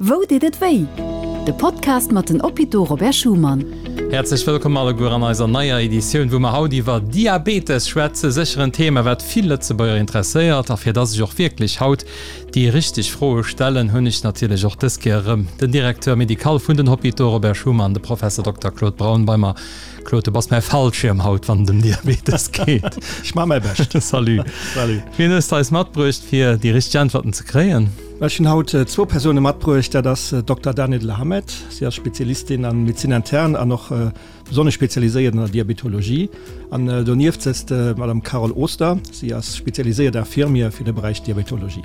Wou deet et wéi? De Podcast mat den Hôpitaux Robert Schuman. Häerzlech wëllkomm alleguer an eiser neier Editioun, wou mer haut iwwer Diabetes schwätzen. Sécher en Thema, wat vill Lëtzebuerger interesséiert. A fir dass ech och wierklech haut déi richteg Froe stellen, hunn ech natierlech och dës Kéier erëm den Directeur médical vun den Hôpitaux Robert Schuman, de Professor Dokter Claude Braun bei mer. Claude, du bass mäi Fallschierm haut, wann et ëm Diabetes geet. Ech maache mäi Bescht. Salut. Salut. Wien hues de eis matbruecht, fir déi richteg Äntwerten ze kréien? Ech hunn haut zwou Persoune matbruecht. Dat ass Dokter Daniela Hamed. Si ass Spezialistin an Médecine interne an och besonnesch spezialiséiert an der Diabetologie. An donieft sëtzt d'Madame Carole Oster. Si ass spezialiséiert Infirmière fir de Beräich Diabetologie.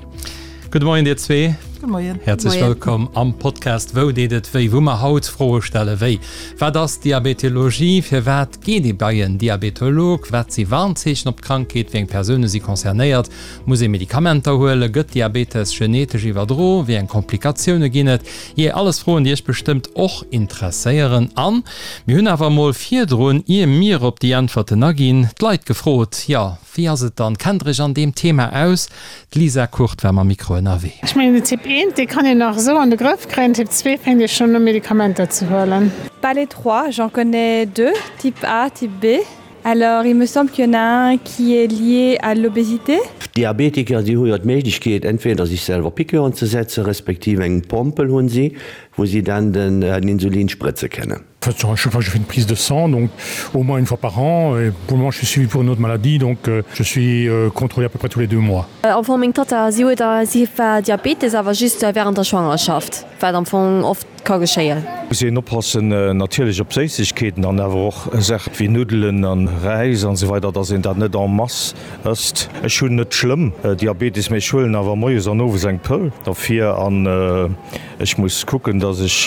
Gudde Moien dir zwee. Gudde Moien. Häerzlech wëllkomm am Podcast Wou deet et wéi, wou mer haut Froe stelle wéi, Wat ass Diabetologie? Firwat geet ee bei en Diabetolog? Wat si Warnzeechen op d'Krankheet? Wéi eng Persoune si concernéiert? Muss ee Medikamenter huelen? Gëtt Diabetes genetesch iwwerdro? Wéi eng Komplikatioune ginn et? Jee, alles Froen, déi iech bestëmmt och interesséieren. An mir hunn awer emol virdrun, ier mir op déi Äntwerten aginn, d'Leit gefrot, jo, wéi ass et dann, kennt der iech an deem Thema aus? D'Lisa Kurt war mam Mikro ënnerwee. Ech mengen den Typ 1, dee kann een nach esou an de Grëff kréien, Typ 2 fänkt ee schonn u Medikamenter ze huelen. Pas les trois, j'en connais deux, type A, type B. Alors il me semble qu'il y en a un qui est lié à l'obésité. D'Diabetiker, si hu jo d'Méiglechkeet entweder sech selwer Piqûren ze setzen, respektiv eng Pompel hunn si, wou si dann den Insulin sprëtze kënnen. À chaque fois je fais une prise de sang donc au moins une fois par an et pour le moment je suis suivi pour une autre maladie donc je suis contrôlé à peu près tous les deux mois. Am Fong meng Tatta, si huet si war Diabetes awer just während der Schwangerschaft, wat am Fong oft ka geschéien. Muss een oppassen natierlech op Séissegkeeten an awer och Saachen wéi Nuddelen an Räis an esou weider, dass een dat net en masse ësst. Ech hunn net schlëmm Diabetes, mee ech huelen awer moies an owes eng Pëll derfir an ech muss kucken, dass ech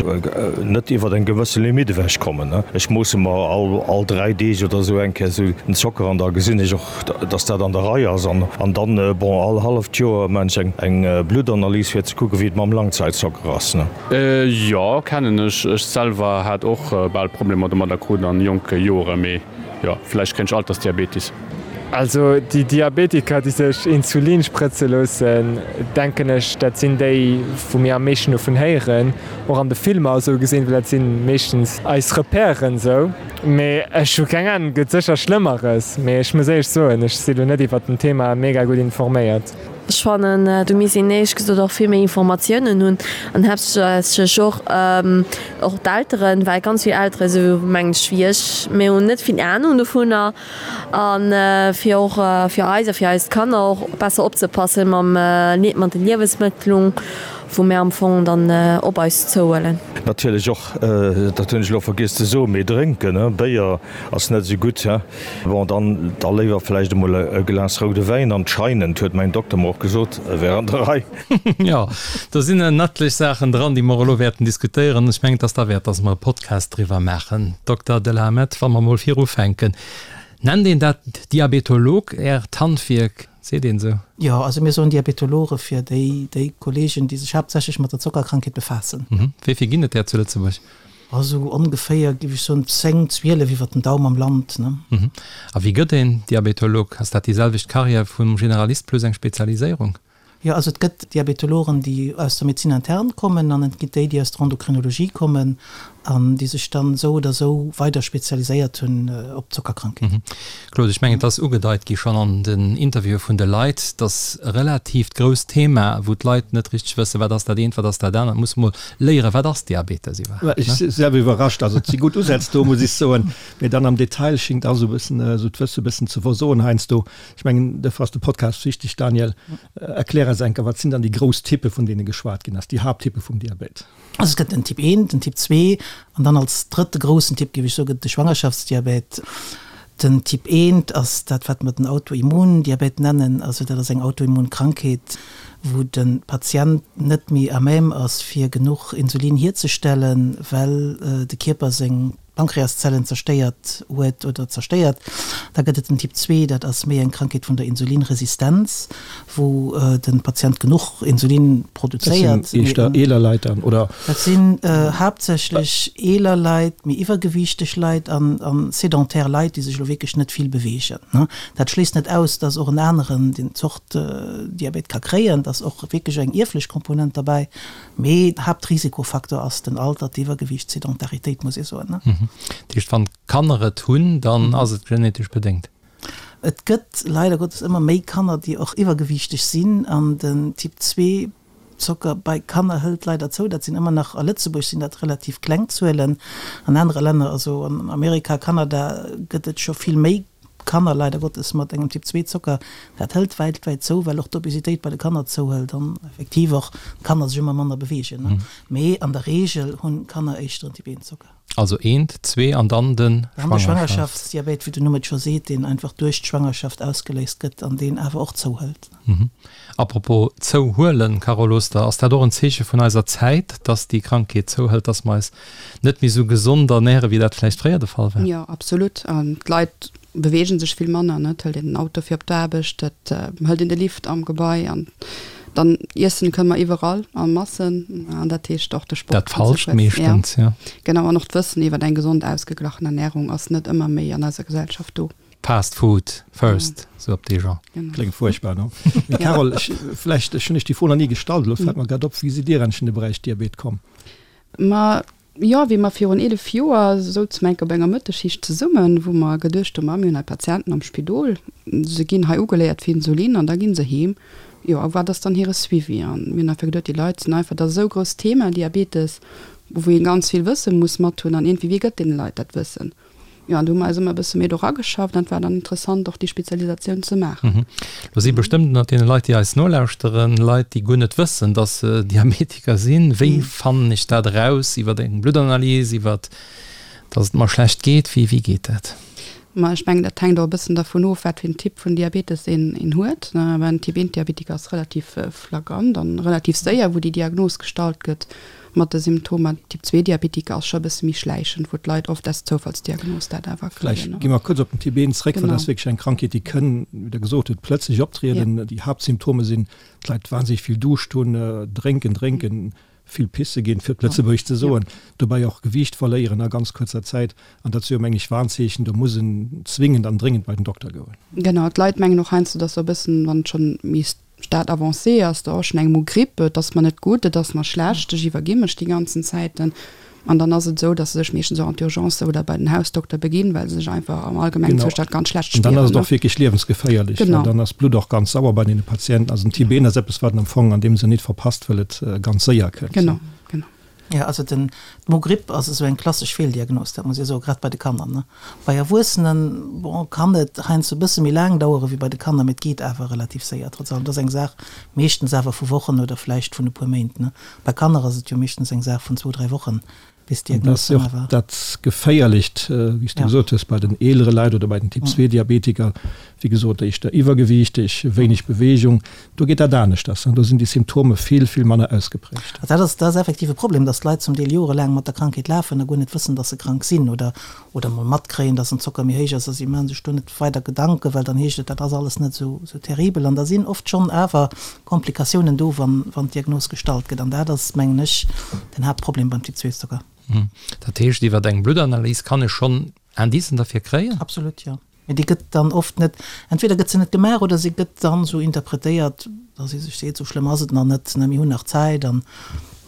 net iwwert eng gewësse Limite ewech kommen. Ech moosse mer all 3 Deeg oder esou eng Kéier esou den Zocker an da gesinn ech och, dass dat an der Rei ass an dann, bon, all halleft Joer maan ech eng Bluttanalys fir ze kucken, wéi et mam Langzeitzocker ass. Jo, kennen ech. Ech selwer hat och bal Problemer domadder krut an jonke Joren, mee jo, vläicht kréien ech Altersdiabetis. Also déi Diabetiker, déi sech Insulin sprëtze loossen, denken ech, dat sinn déi, wou mir am meeschten dovun héieren, och an de Filmer esou gesinn, well dat si meeschtens eis Repèren esou. Mee ech hu keng Ahnung, et gëtt sécher Schlëmmeres, mee ech muss éierlech soen, ech si lo net iwwert den Thema mega gutt informéiert. Ech fannen, do misst een éierlech gesot och vill méi Informatiounen hunn an haaptsächlech och och d'Elteren, well ganz vill Eltere sou mengen ech wéi ech, mir hunn net vill Ahnung dovunner a fir och fir eis a fir eis Kanner och besser opzepassen mam mat de Liewesmëttlung, wou mir am Fong dann op eis zouhuelen. Natierlech och, dat hunn ech elo vergiess ze soen, mee drénken, Béier ass net esou gutt. Bon, dann da léiwer vläicht emol e Glas roude Wäin. Anscheinend, huet mäin Dokter mer och gesot, wär an der Rei. Jo, do sinn en etlech Saachen dran, déi mer elo wäerten diskutéieren. Ech mengen, et ass derwäert, dass mer e Podcast driwwer maachen. Dokter Delhamet, wa mer emol virufänken, Nennt een dat Diabetolog, Äert Handwierk? Seet een esou? Jo, also mir soen Diabetologe fir déi, déi Kollegen, déi sech haaptsächlech mat der Zockerkrankheet befaassen. Wéi vill ginn et där zu Lëtzebuerg? Also ongeféier, géif ech soen, 10, 12 iwwert den Daum am Land, ne. A wéi gëtt een Diabetolog? Ass dat déi selwecht Carrière vum Generalist plus eng Spezialiséierung? Jo, also et gëtt Diabetologen, déi aus der Médecine interne kommen an et gitt déi, déi aus der Endocrinologie kommen an déi sech dann esou oder esou weider spezialiséiert hunn op d'Zockerkrankheet. Claude, ech mengen, et ass ugedeit gi schonn an den Interviewe vun de Leit, dass e relatiivt grousst Thema, wou d'Leit net richteg wëssen, wat ass dat eent, wat ass dat anert, muss mol léieren, wat ass Diabetes iwwerhaapt, Ech si selwer iwwerrascht. Also et si gutt Usätz do, muss ech soen, mee dann am Detail schéngt alles e bëssen, esou d'Wësse e bëssen ze versoen heiansdo. Ech mengen, dofir ass de Podcast wichteg. Daniel, erklär eis eng Kéier, wat sinn dann déi grouss Typpe vun deene geschwat ginn ass, déi Haapttyppe vum Diabet? Also et gëtt den Typ 1, den Typ 2 an dann als drëtte groussen Typ, géif ech soen, gëtt et de Schwangerschaftsdiabet. Den Typ 1 ass dat, wat mer den Autoimmundiabet nennen. Also dat ass eng Autoimmunkrankheet, wou de Patient net méi à même ass, fir genuch Insulin hierzestellen, well de Kierper seng. d'Pankreaszellen zerstéiert huet oder zerstéiert. Da gëtt et den Typ 2, dat ass méi eng Krankheet vun der Insulinresistenz, wou de Patient genuch Insulin produzéiert. Dat sinn éischter eeler Leit dann, oder? Dat sinn haaptsächlech eeler Leit, méi iwwergewiichteg Leit an sédentaire Leit, déi sech elo wierklech net vill beweegen. Dat schléisst net aus, dass och en aneren deen Zort Diabet ka kréien. Et ass och wierklech eng ierflech Komponent derbäi. Mee Haaptrisikofaktor ass den Alter, d'Iwwergewiicht, d'Sedentaritéit, muss ee soen. Dat heescht, wann d'Kanner et hunn, dann ass et genetesch bedéngt? Et gëtt leider Gottes ëmmer méi Kanner, déi och iwwergewiichteg sinn an den Typ 2 Zocker bei Kanner hëlt leider zou. Dat sinn ëmmer nach, a Lëtzebuerg sinn dat relativ kleng Zuelen. An anere Länner, also an Amerika, Kanada, gëtt et scho vill méi Kanner leider Gottes mat engem Typ 2 Zocker. Dat hëlt weltwäit zou, well och d'Obesitéit bei de Kanner zouhëlt an effektiv och d'Kanner sech ëmmer manner beweegen. Mee an der Reegel hunn Kanner éischter en Typ 1 Zocker. Also eent, zwee an dann de Dann de Schwangerschaftsdiabet, wéi den Numm et scho seet, deen einfach duerch d'Schwangerschaft ausgeléist gëtt an deen awer och zouhëlt. Apropos zouhuelen, Carole Oster, ass dat och en Zeeche vun eiser Zäit, dass déi Krankheet zouhëlt, dass mer eis net méi esou gesond ernären, wéi dat vläicht fréier de Fall war? Jo, absolut. An d'Leit beweegen sech vill manner, ne? Et hëlt een den Auto fir op d'Aarbecht, et hëlt een de Lift am Gebai an dann iessen kënne mer iwwerall a Massen an dat heescht och de Sport Dat Falscht meeschtens, jo. Genau, an och d'Wëssen iwwer eng gesond ausgeglachen Ernärung ass net ëmmer méi an eiser Gesellschaft do. Fast food first, sou op dee Genre. Kléngt fuerchtbar, no? Mee Carole, ech, vläicht, ech hunn Iech déi Fro nach ni gestallt, elo fält mer grad op, wéi sidd Dir eigentlech in de Beräich Diabet komm? Ma jo, wéi mer virun 11 Joer souze mer enk op enger Mëttesschicht zesummen, wou mer geduecht hunn, ma mir hunn hei Patienten am Spidol, se ginn hei ugeléiert fir Insulin an da gi se heem. Jo, a wat ass dann hire Suivi? An mir hunn einfach geduet, déi Leit sinn einfach, dat ass esou e grousst Thema, Diabetes, wou ee ganz vill Wësse muss mat hunn an iergendwéi, wie gëtt deene Leit dat Wëssen? Jo, an do hu mer eis ëmmer e bësse méi do rageschafft an et war dann interessant, och déi Spezialisatioun ze maachen. Lo si bestëmmt ënnert deene Leit, déi eis nolauschteren, Leit, déi guer net wëssen, dass se Diabetiker sinn. Wéi fannen ech dat eraus? Iwwer eng Bluttanalys, iwwer dass et mer schlecht geet? Wéi, wéi geet dat? Ma ech mengen, dat hänkt och e bëssen dervun of, wat fir en Typ vun Diabetes een, een huet. Well en Typ 1 Diabetiker ass relativ flagrant an relativ séier, wou déi Diagnos gestallt gëtt. Mat de Symptomer Typ 2 Diabetiker ass scho e bësse méi schläichend, wou d'Leit oft aus Zoufallsdiagnos dat awer kréien. Vläicht gi mer kuerz op den Typ 1 zréck, well dat ass wierklech eng Krankheet, déi kënn, wéi Der gesot hutt, plëtzlech optrieden. Déi Haaptsymptome sinn, d'Leit wahnsinneg vill Duuscht hunn, drénken, drénken, vill pisse ginn, fir et lëtzebuergesch ze soen, dobäi och Gewiicht verléieren a ganz kuerzer Zäit. An dat si jo, meng ech, Warnzeechen, do muss en zwingend an dréngend bei den Dokter goen. Genau, d'Leit mengen och heiansdo, dass se e bëssen, wann et schonn méi Stade avancé ass, da och schon eng Mo Grippe, et ass mer net gutt, et ass mer schlecht, ech iwwergi mech déi ganzen Zäiten. An dann ass et esou, dass se sech meeschtens och an d'Urgence oder bei den Hausdokter beginn, well se sech einfach am allgemengen Genau. Zoustand ganz schlecht An dann spieren, ass et ne? och wierklech liewensgeféierlech, well Genau. dann ass d'Blutt och ganz sauer bei deene Patienten. Also den Typ 1 ass eppes, wat en am Fong an deem Sënn nit verpasst, well et ganz séier kënnt. Genau, genau. Jo, also den, d'Mogripp ass esou eng klassesch Feeldiagnos, dat muss ee soen, grad bei de Kanner, ne. Bei Erwuessenen, bon, kann et heiansdo e bësse méi laang dauere wéi bei de Kanner, mee et geet awer relativ séier trotz allem. Et ass eng Saach meeschtens awer vu Wochen oder vläicht vun e puer Méint, ne. Bei Kanner ass et jo meeschtens eng Saach vun zwou, dräi Wochen, bis An dat d'Diagnos ass jo dann och awer. dat Geféierlecht, wéi s du Ja. gesot hues, bei den eelere Leit oder bei den Typ 2 Diabetiker, wéi gesot, éischter iwwergewiichteg, wéineg Beweegung. Do geet dat aneschters an do sinn déi Symptome vill, vill manner ausgeprägt. Dat ass, dat ass effektiv e Problem, dass d'Leit zum Deel jorelaang mat der Krankheet lafen a guer net wëssen, dass se krank sinn oder, oder mol matkréien, dass den Zocker méi héich ass a si maache sech do net weider Gedanken, well dann heescht et, dat ass alles net esou, esou terribel. An da sinn oft schonn awer Komplikatiounen do, wann, wann d'Diagnos gestallt gëtt. An dat ass, mengen ech, den Haaptproblem beim Typ-II-Zocker. Dat heescht, iwwer eng Bluttanalys kann ech schonn Indicen derfir kréien? Absolut, jo. Mee déi gëtt dann oft net, entweder gëtt se net gemaach oder se gëtt dann esou interpretéiert, dass ee sech seet, esou schlëmm ass et nach net, ne, mir hunn nach Zäit an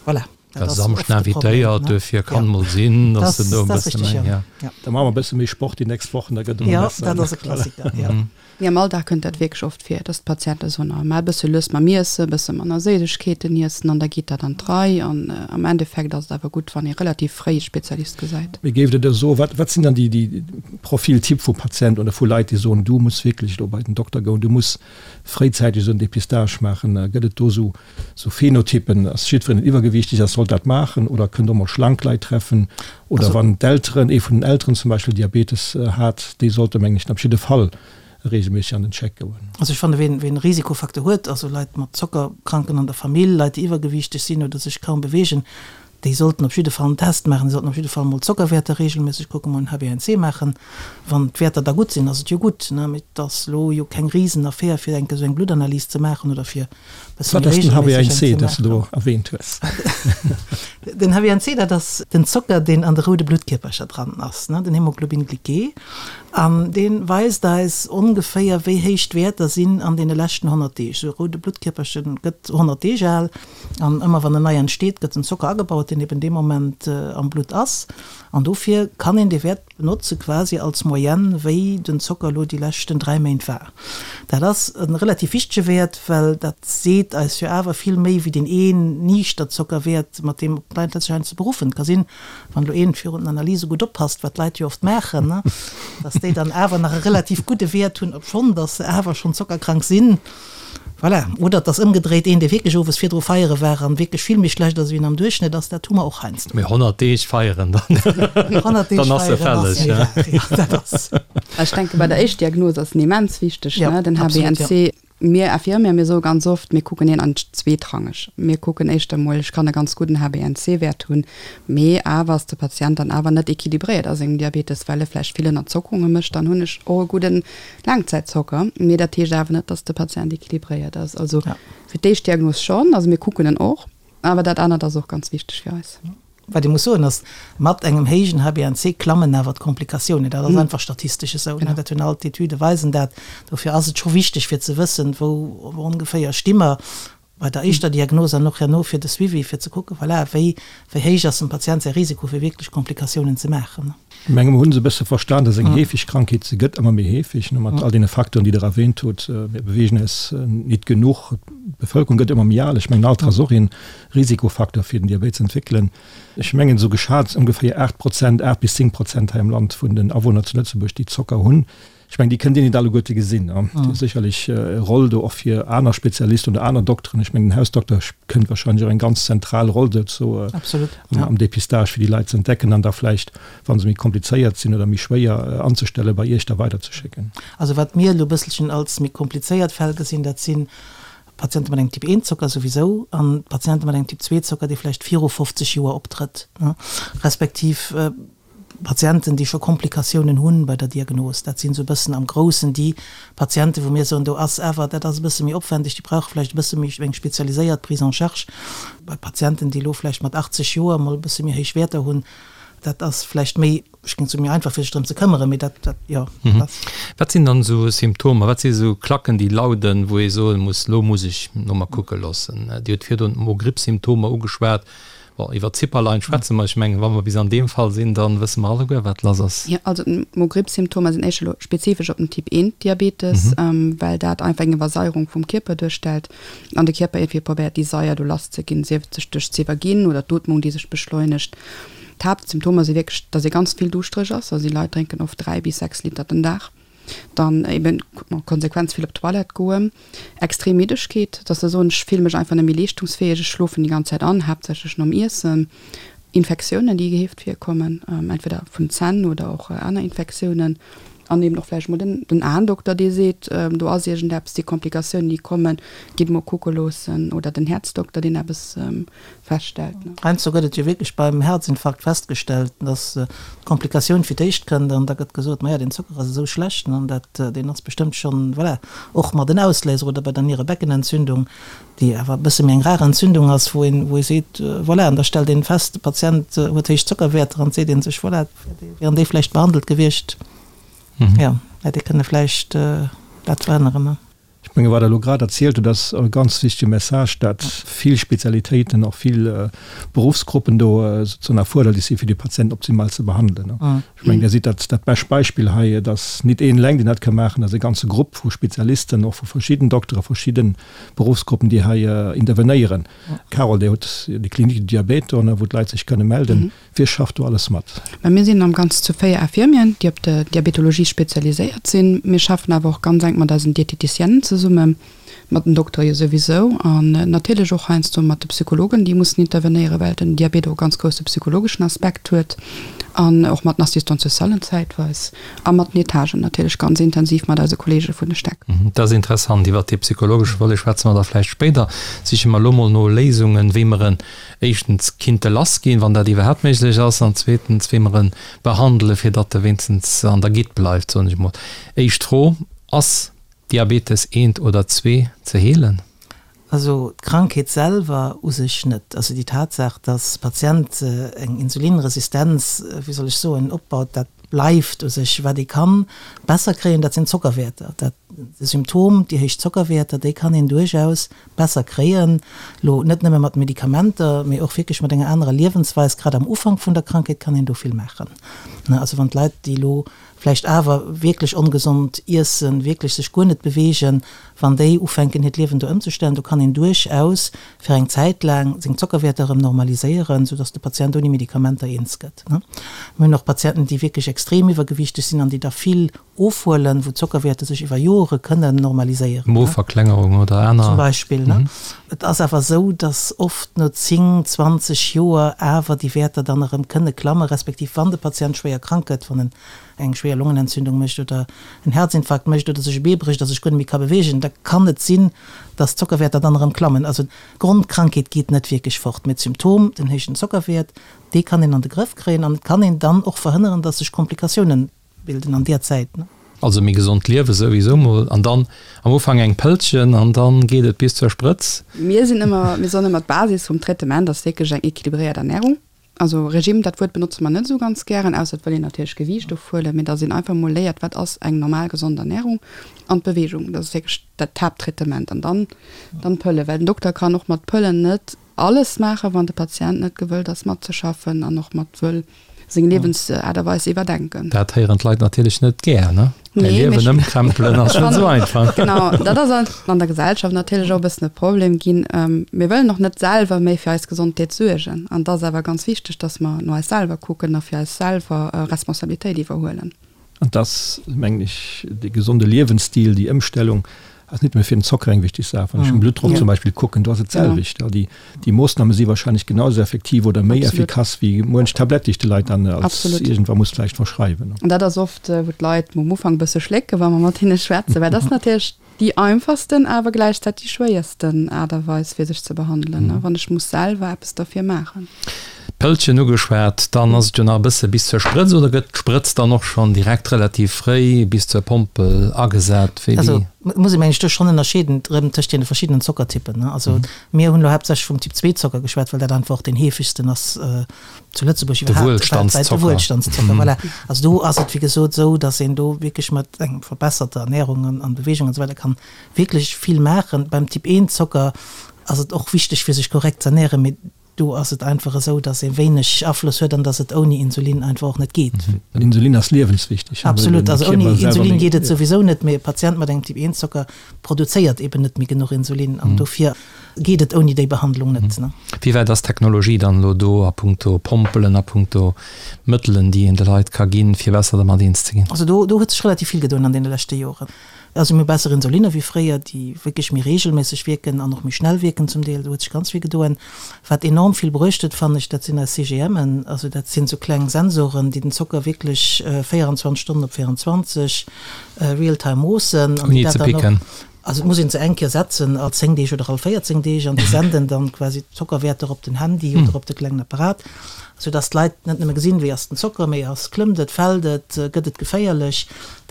voilà. Dat ass oft de Problem, ne? Duerfir kann mol sinn, dass se do e bësse méi, ja. Da maache mer e bësse méi Sport déi nächst Wochen, da gëtt et emol besser. Jo, dat ass e Klassiker, jo. Mee am Alldag kënnt dat wierklech oft vir, dass d'Patiente soen, oh, maach e bësse lues mam Iessen, e bësse manner Séissegkeeten iessen an da geet dat an d'Rei. An am Endeffekt ass et awer gutt, wann ee relativ fréi e Spezialist gesäit. Mee géift Der da soen, wat, wat sinn dann déi, déi Profiltyp vu Patienten oder vu Leit, déi soen, du muss wierklech elo bei den Dokter goen, du muss fréizäiteg esou en Dépistage maachen? Gëtt et do esou, esou Phenotypen? Ass jiddwereen, deen iwwergewiichteg ass, sollt dat maachen oder kënnt och mol schlank Leit treffen? Oder wann d'Elteren, ee vun den Elteren zum Beispill Diabetes hat, déi sollte mengen ech op jidde Fall regelméisseg an den Check goen. Also ech fanne ween ween e Risikofacteur huet, also Leit mat Zockerkranken an der Famill, Leit déi iwwergewiichteg sinn oder sech kaum beweegen, Déi sollten op jidde Fall en Test maachen, déi sollten op jidde Fall mol d'Zockerwäerter reegelméisseg kucken, mol en HbA1c maachen. Wann d'Wäerter da gutt sinn, ass et jo gutt, ne? Mee et ass elo jo keng Risenaffär, fir eng Kéier esou eng Bluttanalys ze maachen oder fir e bësse Wat méi ass den reegelméisseg eng HbA1c, ze deen s de do maachen. erwähnt hues? Den HbA1c, dat ass den Zocker, deen an de roude Bluttkierpercher dran ass, ne, den Hémoglobin glyqué. An dee weist eis ongeféier, wéi héich d'Wäerter sinn an deene leschten 100 Deeg. Esou e roude Bluttkierperche gëtt 100 Deeg al. An ëmmer wann en nei entsteet, gëtt den Zocker agebaut, deen eben dee Moment am Blutt ass. An dofir kann een dee Wäert benotze quasi als Moyenne, wéi den Zocker elo déi leschten 3 Méint war. Dat ass e relativ wichtege Wäert, well dat seet eis jo awer vill méi wéi deen een niichter Zockerwäert, mat deem op d'Leit sech heiansdo beruffen. Et ka sinn, wann elo een virun den Analyse gutt oppasst, wat d'Leit jo oft maachen, dass déi dann awer nach e relativ gudde Wäert hunn, obschonn dass se awer schonn zockerkrank sinn. Voilà. Oder et ass ëmgedréit, een, dee wierklech owes virdru feiere war an wierklech vill méi schlecht ass, wéi en am Duerchschnëtt ass, dat hu mer och heiansdo. Mee 100 Deeg feieren, dann 100 Deeg dann ass se feieren ass fälleg, méi ja. rar, jo, dat ass. Ech denke bei der Éischtdiagnos ass en immens wichteg, Ja, ne, den absolut, ja. HbA1c. Mir Infirmier, mir soe ganz oft, mir kucken hien an zweetrangeg. Mir kucken éischter mol, ech kann e ganz gudden HbA1c-Wäert hunn, mee awer ass de Patient dann awer net équilibréiert a sengem Diabetes, well e vläicht vill Ënnerzockunge mécht, dann hunn ech och e gudden Laangzäitzocker, mee dat heescht awer net, dass de Patient équilibréiert ass. Also fir d'éischt Diagnos schonn, also mir kucken en och, awer dat anert ass och ganz wichteg fir eis. Wat ee muss soen ass, mat engem héijen HbA1c klammen awer d'Komplikatiounen. Dat ass einfach statistesch esou, dat hunn all d'Etüde weisen dat. Dofir ass et scho wichteg fir ze wëssen, wou ongeféier sti mer bei der éischter Diagnos an och herno fir de Suivi, fir ze kucken, voilà, wéi, wéi héich ass dem Patient säi Risiko, fir wierklech Komplikatiounen ze maachen. Ech menge mer hunn se e bësse verstan, dass eng heefeg Krankheet, se gëtt ëmmer méi heefeg, ne, mat all deene Facteuren, déi Der erwähnt hutt. Mir beweegen eis nit genuch, d'Bevölkerung gëtt ëmmer méi al. Ech mengen, Alter ass och ee Risikofacteur, fir den Diabet ze entwéckelen. Ech mengen, esou geschat ongeféier 8 Prozent, 8 bis 10 Prozent hei am Land vun den Awunner zu Lëtzebuerg, déi Zocker hunn. Ech mengen, déi kënnt Dir net alleguerte gesinn. Dir hutt sécherlech e Roll do och fir aner Spezialisten oder aner Dokteren. Ech mengen, den Hausdokter kënnt wahrscheinlech och eng ganz zentral Roll dozou am Dépistage, fir déi Leit ze entdecken an da vläicht, wa se méi komplizéiert sinn oder méi schwéier anzestellen, bei Iech da weiderzeschécken. Also wat mir elo e bësselchen als méi komplizéiert Fäll gesinn, dat si Patiente mat engem Typ I Zocker souwisou an Patiente mat engem Typ II Zocker, dee vläicht viru 50 Joer optrëtt, respektiv Patienten, déi scho Komplikatiounen hunn bei der Diagnos. Dat sinn esou e bëssen am Groussen déi Patienten, wou mir soen, do ass awer, dat ass e bësse méi opwendeg, déi brauche vläicht e bësse méi eng spezialiséiert Prise en charge. Bei Patienten, déi elo vläicht mat 80 Joer emol e bësse méi héich Wäerter hunn, dat ass vläicht méi, ech géing soen, méi einfach fir sech drëm ze këmmeren, mee dat, dat, jo, dat ass. Wat sinn dann esou Symptomer, wat si esou Klacken, déi lauden, wou ee soe muss, elo muss ech no mer kucke loossen? Dir hutt virdrun d'Mo-Gripp-Symptomer ugeschwat. Bon, iwwer d'Zipperlein schwätze mer. Ech mengen, wa mer bis an deem Fall sinn, da wësse mer alleguer, wat lass ass. Jo, also d'Mo-Gripp-Symptomer sinn éischter elo spezifesch op den Typ 1 Diabetes, well dat einfach eng Iwwersaierung vum Kierper duerstellt an de Kierper iergendwéi probéiert, déi Saier do lasszeginn, sief et sech duerch z'iwwerginn oder d'Ootmung, déi sech beschleunegt. D'Haaptsymptomer si wierklech, dass ee ganz vill duuschtereg ass, also déi Leit drénken oft 3 bis 6 Liter den Dag. Dann eben en Konsequenz vill op d'Toilette goen, extrem Middegkeet, dass se soen, ech fille mech einfach net méi leeschtungsfäeg, ech schlofen déi ganz Zäit an, haaptsächlech nom Iessen, Infektiounen, déi geheeft virkommen, entweder vun Zänn oder och aner Infektiounen, an eben och vläicht mol den den Aendokter, dee seet, do ass iergendeppes, déi Komplikatiounen, déi kommen, gitt mol kucke loossen, oder den Häerzdokter, deen eppes feststellt. Heiansdo gëtt et jo wierklech beim Herzinfarkt festgestellt, dass d'Komplikatioun fir d'éischt kënnt an da gëtt gesot, maja, deen Zocker ass esou schlecht an dat, deen ass bestëmmt schonn, voilà, och mat en Ausléiser oder bei der Nierebeckenentzündung, déi awer e bësse méi eng rar Entzündung ass, wou een, wou ee seet, voilà, an da stellt een fest, de Patient huet héich Zockerwäerter an et seet ee sech, voilà, wieren déi vläicht behandelt gewiescht, jo, hätt ee kënne vläicht dat verhënneren. Ech menge wat Der elo grad erzielt hutt, ass e ganz wichtege Message, dat vill Spezialitéiten, och vill Beruffsgruppen do sozusagen erfuerderlech sinn, fir de Patient optimal ze behandelen. Ech mengen, Dir sidd dat dat bescht Beispill hei. Et ass nit een eleng, deen dat ka maachen, et ass e ganze Grupp vu Spezialisten, och vu verschidden Doktere, verschidde Beruffsgruppen, déi hei intervenéieren. Carole, Dir hutt déi Clinique du diabète do, wou d'Leit sech kënne melden. Wie schafft do alles mat? Mä mir sinn am Ganzen zu 4 Infirmieren, déi op der Diabetologie spezialiséiert sinn. Mir schaffen awer och ganz enk mat eisen Dieteticienen zesummen. Mat den Doktere jo souwisou an natierlech och heiansdo mat de Psychologen, déi mussen intervenéieren, well den Diabet och e ganz grousse psychologeschen Aspekt huet an och mat den Assistante-socialen zäitweis a mat den Etagen natierlech ganz intensiv mat eise Kollege vun de Stäck. Dat ass interessant. Iwwert dee psychologesche Volet schwätze mer da vläicht spéider. Siche mer elo mol no Léisungen, wéi mer en éischtens kinnte lassginn, wann dat iwwerhaapt méiglech ass, an zweetens, wéi mer e behandelen, fir datt e wéinstens an der Gitt bleift, soen ech mol. Éischt Fro, Ass Diabetes eent oder zwee ze heelen? Also d'Krankheet selwer u sech net. Also déi Tatsaach, dass de Patient eng Insulinresistenz, wéi soll ech soen, opbaut, dat bleift u sech. Wat ee ka besser kréien, dat sinn d'Zockerwäerter. Dat de Symptom, déi héich Zockerwäerter, déi kann een duerchaus besser kréien. Elo net nëmme mat Medikamenter, mee och wierklech mat enger anerer Liewensweis. Grad am Ufank vun der Krankheet kann een do vill maachen. Also wann d'Leit, déi elo vläicht awer wierklech ongesond iessen, wierklech sech guer net beweegen, wann déi ufänken hiert Liewen do ëmzestellen, do kann een duerchaus fir eng Zäit laang seng Zockerwäerter erëm normaliséieren, soudass de Patient ouni Medikamenter eens gëtt. Mir hunn och Patienten, déi wierklech extrem iwwergewiichteg sinn an déi da vill ofhuelen, wou d'Zockerwäerter sech iwwer Jore kënnen normaliséieren. Moverklengerung oder aner. Zum Beispill. Et ass awer esou, dass oft no 10, 20 Joer awer déi Wäerter dann erëm kënne klammen, respektiv wann de Patient schwéier krank gëtt, wann en eng schwéier Longenentzündung mécht oder en Herzinfarkt mécht oder sech e Bee brécht a sech guer net méi ka beweegen, da kann et sinn, dass d'Zockerwäerter dann erëm klammen. Also d'Grondkrankheet geet net wierklech fort, mee d'Symptom, den héijen Zockerwäert, dee kann een an de Grëff kréien an et kann een dann och verhënneren, dass sech Komplikatiounen Bilden an deer Zäit, ne? Also méi gesond liewe souwisou mol an dann am Ufank eng Pëllchen an dann geet et bis zur Sprëtz. Mir sinn ëmmer, mir soen ëmmer d'Basis vum Traitement ass wierklech eng équilibréiert Ernährung. Also Regime, dat Wuert benotze mer net esou ganz gären, ausser et wëll een natierlech Gewiicht ofhuelen, mee dass een einfach mol léiert, wat ass eng normal gesond Ernährung an d'Bewegung, dat ass wierklech dat Haapttraitement an dann dann d'Pëlle, well den Dokter kann och mat Pëllen net alles maachen, wann de Patient net gewëllt ass matzeschaffen an och mat wëll seng Liewensaart a Weis iwwerdenken. Dat héieren d'Leit natierlech net gär, ne? Mäi Liewen ëmkrempelen ass net esou einfach. Genau, dat ass an der Gesellschaft natierlech och e bëssen e Problem ginn. Mir wëllen och net selwer méi fir eis Gesondheet suergen. An et ass awer ganz wichteg, datt mer no eis selwer kucken a fir eis selwer Responsabilitéit iwwerhuelen. An dass, mengen ech, dee gesonde Liewensstil, déi Ëmstellung ass net nëmme fir den Zocker eng wichteg Saach. Wann ech den Bluttdrock zum Beispill kucken, do ass et d'selwecht. Déi, déi Moossname si wahrscheinlech genau esou effektiv oder méi effikass wéi muench Tablett, déi ech de Leit dann als iergendwa muss vläicht verschreiwen. An dat ass oft, wou d'Leit um Ufank e bësse schlécken, wa mer mat hinne schwätzen, well dat ass natierlech Déi einfachsten, awer gläichzäiteg déi schwéiersten Aart a Weis fir sech ze behandelen, wann ech muss selwer eppes derfir maachen. D'Pëllchen ugeschwat, dann ass et jo nach e bësse bis zur Sprëtz, oder gëtt d'Sprëtz dann och schonn direkt relativ fréi bis zur Pompel agesat? Wéi Also et muss ee mengen ech do schonn ënnerscheeden erëm tëscht deene verschiddenen Zockertypen. Also mir hunn elo haaptsächlech vum Typ 2 Zocker geschwat, well dat einfach och deen heefegsten ass zu Lëtzebuerg iwwerhaapt, weltwäit, de Wuelstandszocker. Wuelstandszocker, voilà. Also do ass et wéi gesot esou, datt een do wierklech mat eng verbesserter Ernährung an, an Bewegung an esou weider kann wierklech vill maachen. Beim Typ 1 Zocker ass et och wichteg fir sech korrekt ze ernähren, mee do ass et einfach esou, datt ee wéineg Afloss huet an datt et ouni Insulin einfach och net geet. Well Insulin ass liewenswichteg. Absolut, also ouni Insulin geet et souwisou net, mee e Patient mat engem Typ 1 Zocker produzéiert eben net méi genuch Insulin an dofir geet et ouni déi Behandlung net. Wéi wäit ass d'Technologie dann elo do a punkto Pompelen, a punkto Mëttelen, déi een de Leit ka ginn, fir besser dermat eens ze ginn? Also do do huet sech relativ vill gedoen an deene leschte Joren. Also mir hu besser Insulinne wéi fréier, déi wierklech méi reegelméisseg wierken an och méi schnell wierken zum Deel. Do huet sech ganz vill gedoen. Wat enorm vill bruecht huet, fannen ech, dat sinn eis CGMen. Also dat sinn esou kleng Sensoren, déi den Zocker wierklech 24 Stonnen op 24 real time moossen an déi dat dann och. Also et muss een se eng Kéier setzen, all 10 Deeg oder all 14 Deeg, an déi senden dann quasi d'Zockerwäerter op den Handy oder op de klengen Apparat, sou dass d'Leit net nëmme gesinn, wéi ass den Zocker, mee ass, klëmmt et, fält et, gëtt et geféierlech.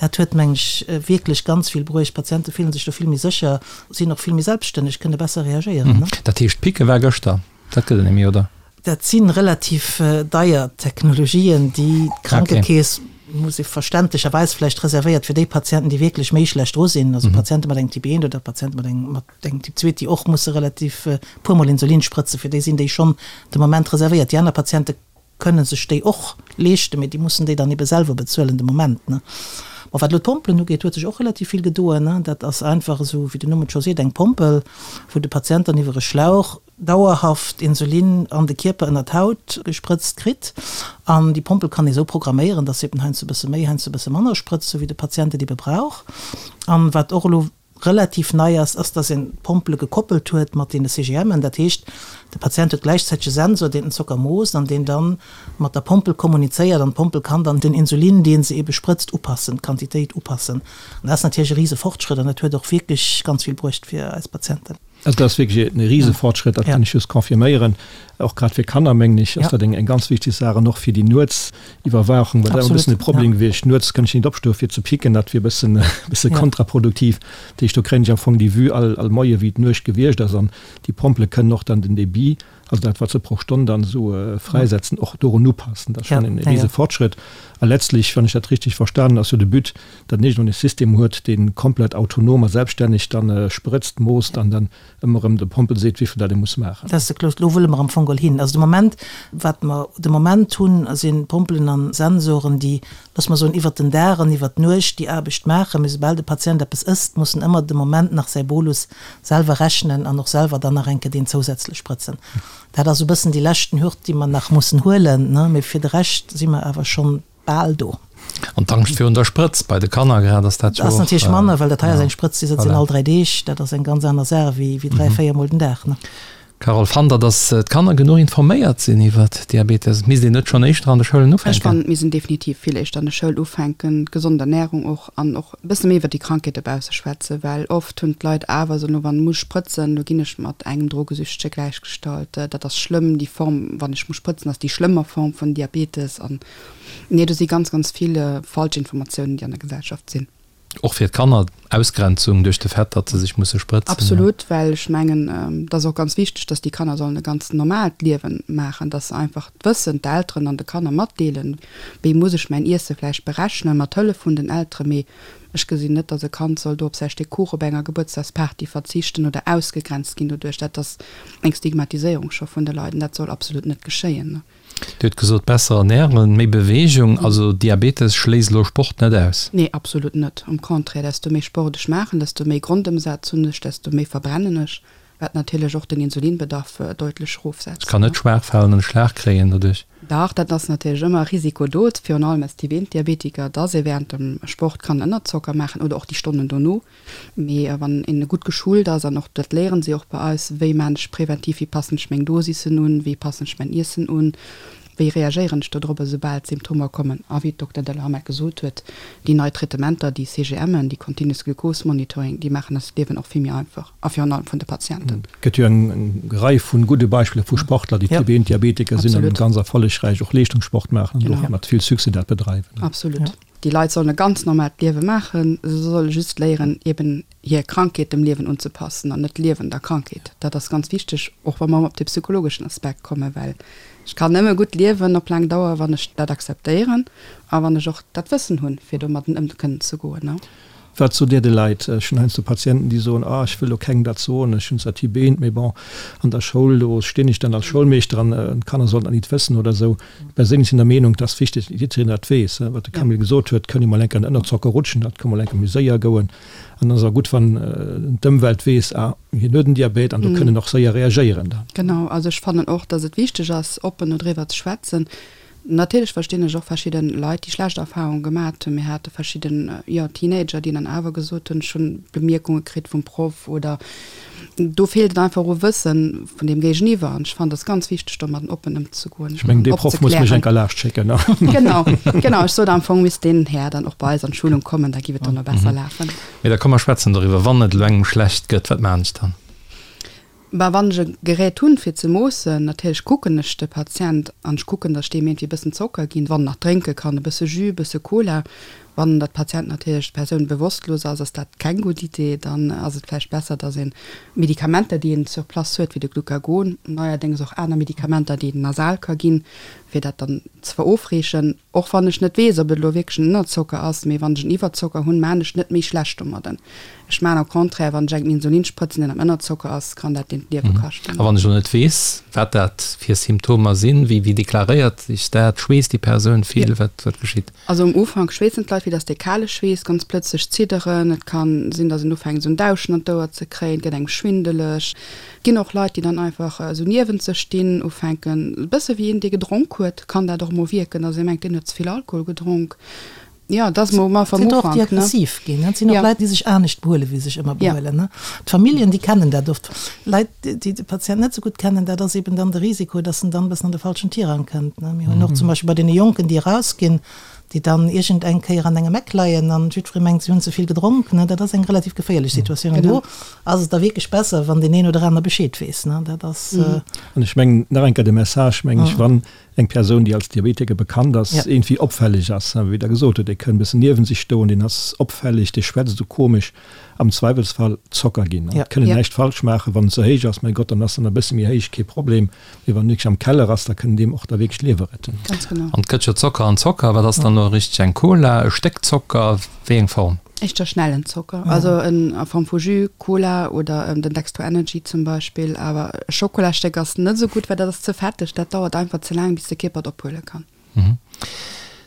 Dat huet, meng ech, wierklech ganz vill bruecht. D'Patiente fillen sech do vill méi sécher, sinn och vill méi selbststänneg, kënne besser reagéieren. Dat heescht, d'Picke war gëschter? Dat gëtt et net méi, oder? Dat si relativ deier Technologien, déi d'Krankekeess, muss ee verständlecherweis vläicht, reservéiert fir déi Patienten, déi wierklech méi schlecht dru sinn, also Patiente mat engem Typ 1 oder Patiente mat engem mat engem Typ 2, déi och musse relativ e puermol Insulin sprëtzen, fir déi sinn déi schonn de Moment reservéiert. Déi aner Patiente kënne sech déi och leeschten, mee déi mussen déi dann ebe selwer bezuelen de Moment. Bon, wat elo d'Pompelen ugeet, huet sech och relativ vill gedoen. Dat ass einfach esou, wéi den Numm et scho seet, eng Pompel, wou de Patient dann iwwer e Schlauch dauerhaft Insulin an de Kierper ënner d'Haut gesprëtzt kritt. An déi Pompel kann ee sou programméieren, dass se eben heiansdo e bësse méi, heiansdo e bësse manner sprëtzt, sou wéi de Patient et ebe brauch. An wat och elo. relativ nei ass, ass, dass een d'Pompele gekoppelt huet mat deene CGMen. Dat heescht, de Patient huet gläichzäiteg e Sensor, deen den Zocker moosst an deen dann mat der Pompel kommunizéiert an d'Pompel kann dann den Insulin, dee se eebe sprëtzt, upassen, d'Quantitéit upassen. An dat ass natierlech e rise Fortschrëtt an dat huet och wierklech ganz vill bruecht fir eis Patienten. Also dat ass wierklech e rise Fortschrëtt, dat kann ech just confirméieren. Och grad fir Kanner, mengen ech, ass dat eng ganz wichteg Saach an och fir déi Nuetsiwwerwaachung, well dat ass e bëssen e Problem gewiescht. Nuets kënnt ech net opstoe fir ze picken, dat wier e bëssen, e bësse kontraproduktiv. Dat heescht, do kréien ech am Fong déi Vue all, all Moie wéi d'Nuecht gewiescht ass an déi Pompele kënnen och dann den Débit, also dat wat se pro Stonn dann esou fräisetzen, och dorun upassen. Dat ass schonn e rise Fortschrëtt. A letztlich, wann ech dat richtig verstanen, ass jo de But, datt een iergendwann e System huet, dee komplett autonom a selbststänneg dann sprëtzt, moosst an dann ëmmer erëm de Pompel seet, wéivill dat e muss maachen. Dat ass de Closed. Do wëlle mer am Fong geholl hin. Also de Moment, wat mer de Moment hunn, si Pompelen a Sensoren, déi, loosse mer soen, iwwert den Dag an iwwert d'Nuecht déi Aarbecht maachen. Mee soubal de Patient eppes ësst, muss en ëmmer de Moment nach säi Bolus selwer rechnen an och selwer dann nach eng Kéier deen zousätzlech sprëtzen. Dat ass e bëssen déi leschten Hürd, déi mer nach mussen huelen, ne. Mee fir de Rescht si mer awer schonn bal do. An d'Angscht virun der Sprëtz, bei de Kanner grad, ass dat jo och. Ass natierlech manner, well dat hei ass eng Sprëtz, déi sëtzt een all 3 Deeg. Dat ass eng ganz aner Saach wéi 3, 4 mol den Dag, ne. Carole, Fannt Der, datt d'Kanner genuch informéiert sinn iwwer Diabetes? Misst een net schonn éischter an de Schoulen ufänken? Ech fannen, et misst een definitiv vill éischter an de Schoul ufänken, d'gesond Ernärung och an och e bësse méi iwwer déi Krankheet dobausse schwätzen, well oft hunn d'Leit awer esou, elo wann muss sprëtzen, elo ginn ech mat engem Drogesüchtege gläichgestallt, dat ass schlëmm, déi Form, wann ech muss sprëtzen, ass déi schlëmmer Form vun Diabetes an nee, do si ganz, ganz vill falsch Informatiounen, déi an der Gesellschaft sinn. Och fir d'Kanner, Ausgrenzung duerch de Fait, datt se sech musse sprëtzen. Absolut, well ech mengen, et ass och ganz wichteg, datt déi Kanner sollen e ganz normaalt Liewen maachen, datt se einfach d'Wëssen, d'Elteren an de Kanner matdeelen, wéi muss ech mäin Iesse vläicht berechnen, mat Hëllef vun den Elteren. Mee ech gesinn net, datt e Kand soll do op säi Stéck Kuch op enger Gebuertsdagsparty verzichten oder ausgegrenzt ginn doduerch. Dat ass eng Stigmatiséierung scho vun de Leit an dat soll absolut net geschéien. Dir hutt gesot, besser ernähren, méi Beweegung. Also Diabetes schléisst elo Sport net aus? Nee, absolut net. Am Contraire, desto méi Sport ech maachen, desto méi Grondëmsaz hunn ech, desto méi verbrennen ech, wat natierlech och den Insulinbedarf deutlech erofsetzt. Ech kann net schwaach falen an e Schlag kréien doduerch? Dach, dat ass natierlech ëmmer e Risiko do, virun allem als Typ 1 Diabetiker, dass ee während dem Sport kann Ënnerzocker maachen oder och déi Stonnen dono. Mee wann een gutt geschult ass, an och dat léieren si och bei eis, wéi maan ech präventiv, wéi passen ech meng Dosissen un, wéi passen ech mäin Iessen un, wéi reagéieren ech dodrop esoubal d'Symptomer kommen. A wéi d'Dokter Delhamet gesot huet, déi nei Traitementer, déi CGMen, déi Continuous Glucose Monitoring, déi maachen eis d'Liewen och vill méi einfach a virun allem vun de Patienten. Et gëtt jo eng Rei vu gudde Beispiller vu Sportler, déi Typ 1 Diabetiker sinn an ganz erfollegräich och Leeschtungssport maachen an och mat vill Succès dat bedreiwen. Absolut. Déi Leit sollen e ganz normaalt Liewe maachen, se solle just léieren, eben hir Krankheet dem Liewen unzepassen an net d'Liewen der Krankheet. Dat ass ganz wichteg, och wa mer op de psychologeschen Aspekt kommen, well ech kann nëmme gutt liewen op laang Dauer, wann ech dat akzeptéieren a wann ech och dat Wëssen hunn, fir domadden ëm kënnen ze goen. Wat sot Dir de Leit? Ech hunn heiansdo Patienten, déi soen, ah, ech wëll lo kengem dat soen, ech hunn zwar Typ 1, mee bon, an der Schoul, do stinn ech dann als Schoulmeeschter an d'Kanner sollen dat nit wëssen oder esou. Ech perséinlech sinn der Meenung, et ass wichteg, datt jiddereen dat weess. Wat de Camille gesot huet, kënn ee mol enk an den Ënnerzocker rutschen, dat ka mol enk méi séier goen. An dann ass et och gutt, wann d'Ëmwelt weess, ah, hien huet en Diabet an do kënn en och séier reagéieren dann. Genau, also ech fannen och, datt et wichteg ass, oppen dodriwwer ze schwätzen. Natierlech verstinn ech och verschidden Leit, déi schlecht Erfahrungen gemat hunn. Mir hate verschidden, jo, Teenager, déi dann awer gesot hunn, ech hunn Bemierkunge kritt vum Proff oder do feelt et einfach u Wëssen vun deem Géigeniwwer. An ech fannen, et ass ganz wichteg, domadden oppen ëmzegoen Ech mengen, dee Proff muss mech eng Kéier laascht schécken. Genau, genau. Ech sot am Fong misst deen Här dann och bei eis an d'Schulung kommen, da giff et dann och besser lafen. Mee da komm mer schwätzen doriwwer, wann et elo engem schlecht gëtt, wat maachen ech dann? Bah, wann ech e Gerät hunn fir ze moossen, natierlech kucken ech de Patient an ech kucken, datt ech deem iergendwéi e bëssen Zocker ginn, wann en nach drénke kann, e bësse Jus, e bësse Cola. Wann dat Patient natierlech, d'Persoun bewosstlos ass, ass dat keng gutt Idee. Dann ass et vläicht besser, datt een Medikamenter, déi een sur place huet, wéi de Glucagon, neierdéngs och aner Medikamenter, déi een nasal ka ginn, fir dat dann ze verofreechen. Och wann ech net weess, ob et elo wierklech en Ënnerzocker ass, mee wann ech en Iwwerzocker hunn, maan ech net méi schlecht domadden. Ech maan au contraire, wann ech engem Insulin sprëtzen, deen am Ënnerzocker ass, kann dat deen d'Liewe kaschten. A wann ech elo net weess, wat dat fir Symptomer sinn, wéi deklaréiert sech dat? Schweesst déi Persoun vill? Wat geschitt? Also um Ufank schweessen d'Leit vill, dass dee kale Schweess, ganz plëtzlech zidderen, et kann sinn, dass een ufänkt esou en Dauschen an d'Ouer ze kréien, et gëtt engem schwindeleg. Et ginn och Leit, déi dann einfach esou niewent sech stinn, ufänken, e bësse wéi een, dee gedronk huet, kann dat och emol wierken, dass ee mengt, deen huet ze vill Alkohol gedronk. Jo, dat ass mol am Ufank. Sinn och déi aggressiv ginn. Et sinn och Leit, déi sech anescht behuelen, wéi se sech ëmmer behuelen. D'Familljen, déi kennen dat oft. Leit, déi de Patient net esou gutt kennen, dat ass eben dann de Risiko, dass en dann e bëssen an de falschen Tirang kënnt. Mir hunn och zum Beispill bei deene Jonken, déi erausginn, déi dann iergend eng Kéier an engem Eck leien an jiddweree mengt, si hunn ze vill gedronk. Dat ass eng relativ geféierlech Situatioun. An do ass et da wierklech besser, wann deen een oder aner Bescheed weess. Dat ass. An ech mengen, nach eng Kéier de Message, meng ech, wann eng Persoun, déi als Diabetiker bekannt ass, iergendwéi opfälleg ass, wéi Der gesot hutt, dee kënn e bëssen niewen sech stoen, deen ass opfälleg, dee schwätzt esou komesch, am Zweiwelsfall Zocker ginn. Et kënn en näischt falsch maachen, wann en ze héich ass, mäi Gott, dann ass en e bësse méi héich, kee Problem, mee wann en wierklech am Keller ass, da kënn en deem och da wierklech d'Liewe retten. Ganz genau. An et gëtt jo Zocker an Zocker. Wat ass dann elo richteg? Eng Cola, e Stéck Zocker, wéi eng Form? Éischter schnellen Zocker, also en a Form vu Jus, Cola oder den Dextro Energy zum Beispill. Awer e Schokolastéck ass net esou gutt, well dat ass ze fetteg, dat dauert einfach ze laang bis de Kierper et ophuele kann.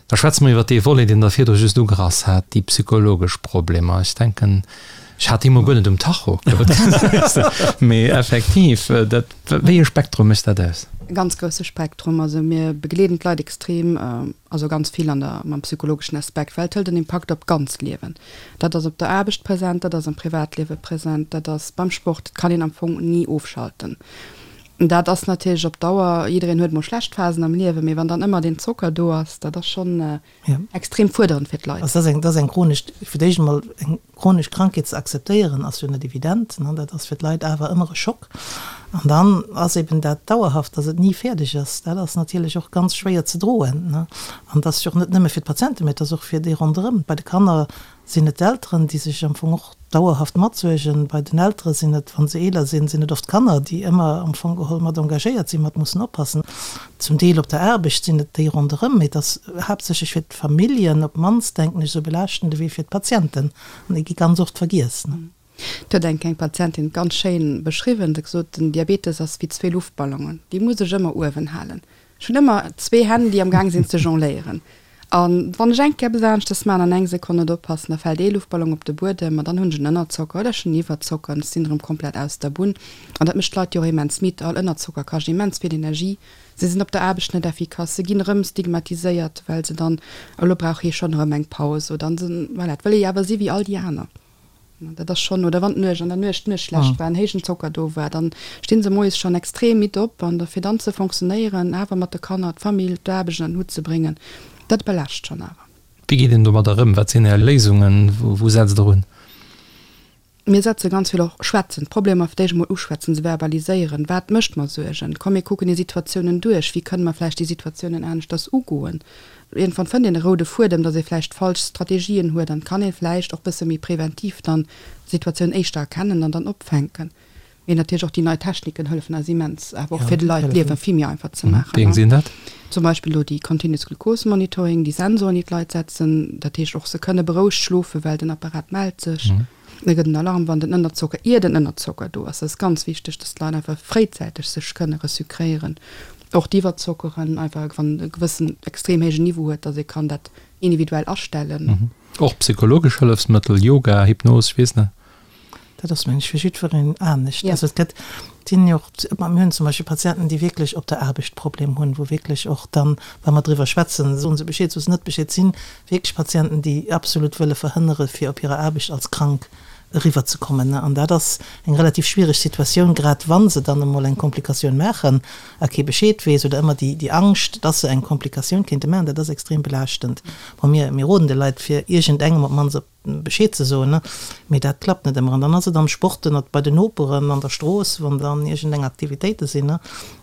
Da schwätze mer iwwer dee Volet, deen Der virdru just ugerass hat, déi psychologesch Problemer. Ech denken, ech hat déi emol guer net um Tacho, mee effektiv, dat, wéi e Spektrum mécht dat aus? E ganz grousse Spektrum. Also mir begleeden d'Leit extrem. Also ganz vill an der, mam psychologeschen Aspekt, well et hëlt en Impakt op d'ganzt Liewen. Dat ass op der Aarbecht present, dat ass am Privatliewe present, dat ass beim Sport, et kann een am Fong ni ofschalten. Dat ass natierlech op Dauer, jiddereen huet mol schlecht Phasen am Liewen, mee wann dann ëmmer deen Zocker do ass, dat ass schonn extrem fuerderend fir d'Leit. Also dat ass eng, dat ass eng chronesch, fir d'éischt emol eng Chronesch Krankheet ze akzeptéieren ass jo net evident, dat ass fir d'Leit awer ëmmer e Schock. An dann ass eben dat dauerhaft, datt et ni fäerdeg ass, dat ass natierlech och ganz schwéier ze droen. An et ass jo och net nëmme fir d'Patienten, mä et ass och fir déi ronderëm. Bei de Kanner sinn et d'Elteren, déi sech am Fong och dauerhaft matsuergen. Bei den Eltere sinn et, wa se eeler sinn, sinn et oft d'Kanner, déi ëmmer am Fong geholl mat engagéiert sinn, mat mussen oppassen. Zum Deel op der Aarbecht sinn et déi ronderëm, mee et ass haaptsächlech fir d'Familljen op d'mannst, denken ech, esou belaaschtend ewéi fir d'Patienten. An déi gi ganz oft vergiess. Et huet eng eng Patientin ganz schéin beschriwwen, se huet gesot, den Diabetes ass wéi zwee Luftballonen, déi muss ech ëmmer uewen halen. Ech hunn ëmmer zwee Hänn, déi am Gaang sinn ze jongléieren. A wann ech eng Kéier eppes aneschtes maachen an eng Sekonn net oppassen, da fält ee Luftballon op de Buedem an dann hunn ech en Ënnerzocker oder ech hunn en Iwwerzocker an ech sinn erëm komplett aus der Bunn. An dat mécht d'Leit jo och immens midd. All Ënnerzocker kascht immens vill Energie. Se sinn op der Aarbecht net effikass, se ginn erëm stigmatiséiert, well se dann, elo brauch hie schonn erëm eng Paus oder an se, voilà, et wëll ee jo awer si wéi all déi aner. Dat ass schonn, oder wann d'Nuecht, an der Nuecht d'Nuecht schlecht war, en héijen Zocker do war, dann sti se moies schonn extrem midd op an da fir dann ze fonctionnéieren, awer mat de Kanner, d'Famill, d'Aarbecht ënner den Hutt ze bréngen, dat belaascht schonn awer. Wéi geet een domadder ëm? Wat sinn Är Léisungen? Wou setzt Der un? Mir setze ganz vill och schwätzen, d'Problemer fir d'éischt emol uschwätzen, se verbaliséieren. Wat mécht mer Suergen? Komm mir kucken déi Situatiounen duerch. Wéi kënne mer vläicht déi Situatiounen aneschters ugoen? Iergendwann fënnt een e roude Fuedem, datt ee vläicht falsch Strategien huet an kann ee vläicht och bësse méi preventiv dann d'Situatioun éischter erkennen an dann opfänken. Mee natierlech och déi nei Techniken hëllefen eis immens, awer och fir de Leit d'Liewe vill méi einfach ze maachen. Wéi eng sinn dat? Zum Beispill elo déi Continuous Glucose Monitoring, déi Sensoren, déi d'Leit setzen. Dat heescht och, se kënne berouegt schlofen, well den Apparat mellt sech. Da gëtt en Alarm, wann den Ënnerzocker, ier den Ënnerzocker do ass. Dat ass ganz wichteg, dass d'Leit einfach fréizäiteg sech kënne resucréieren. Och d'Iwwerzockeren, einfach wann e gewëssen extrem héijen Niveau huet, dass ee kann dat individuell astellen. Och psychologesch Hëllefsmëttel, Yoga, Hypnos, ech weess net. Dat ass, mengen ech, fir jiddwereen anescht. Also et gëtt, et sinn jo och, mir hunn zum Beispill Patienten, déi wierklech op der Aarbecht Problem hunn, wou wierklech och dann, wa mer driwwer schwätzen, soen se Bescheed, soe se net Bescheed, sinn wierklech Patienten, déi absolut wëlle verhënnere fir op hirer Aarbecht als krank eriwwer ze kommen. An dat ass eng relativ schwiereg Situatioun, grad wa se dann emol eng Komplikatioun maachen a kee Bescheed weess oder ëmmer déi déi Angscht, dass se eng Komplikatioun kéinte maachen, dat ass extrem belaaschtend. Bon, mir mir roden de Leit fir iergendengem op d'mannst op Bescheed ze soen, mee dat klappt net ëmmer. An dann ass et am Sport, ënnert bei den Noperen, an der Strooss, wann dann iergendeng Aktivitéite sinn,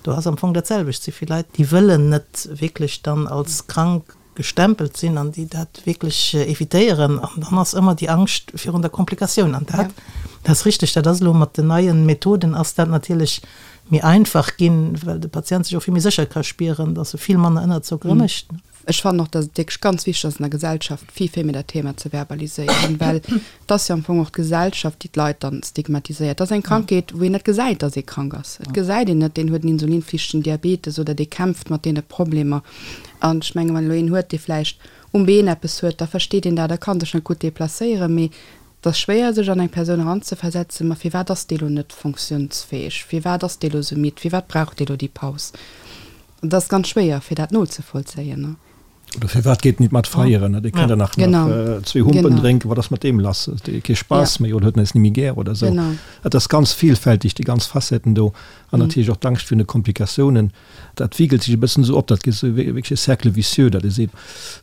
do ass am Fong dat selwecht. Et si vill Leit, déi wëllen net wierklech dann als krank gestempelt sinn an déi dat wierklech evitéieren. An dann ass ëmmer déi Angscht virun der Komplikatioun. An dat, dat ass richteg, dat ass elo mat den neien Methoden ass dat natierlech méi einfach ginn, well de Patient sech och vill méi sécher ka spieren, dass e vill manner Ënnerzockere mécht. Ech fannen och, dass et wierklech ganz wichteg ass an der Gesellschaft vill, vill méi dat Thema ze verbaliséieren, well et ass jo am Fong och d'Gesellschaft, déi d'Leit dann stigmatiséiert. Et ass eng Krankheet, wou een net gesäit, dass ee krank ass. Et gesäit een net, deen huet en insulinflichtegen Diabetes oder dee kämpft mat deene Problemer. An ech mengen, wann elo een huet, dee vläicht um Been eppes huet, da versteet een dat a ka sech net gutt deplacéieren. Mee et ass schwéier, sech an eng Persoun eranzeversetzen, ma firwat ass dee lo net fonctiounsfäeg, firwat ass dee lo sou midd, firwat brauch dee lo déi Paus? Et ass ganz schwéier fir dat nozevollzéien. Oder firwat geet en nit mat feieren? Dee kann der nach zwee Humpen drénken, wat ass mat deem lass? Huet dee kee Spaass méi oder huet en eis ni méi gär oder esou? Et ass ganz vielfältig, déi ganz Facetten do. An natierlech och d'Angscht virun de Komplikatiounen. Dat wigelt sech e bëssen esou op, dat gëtt esou wierklech e Cercle vicieux, datt ee seet,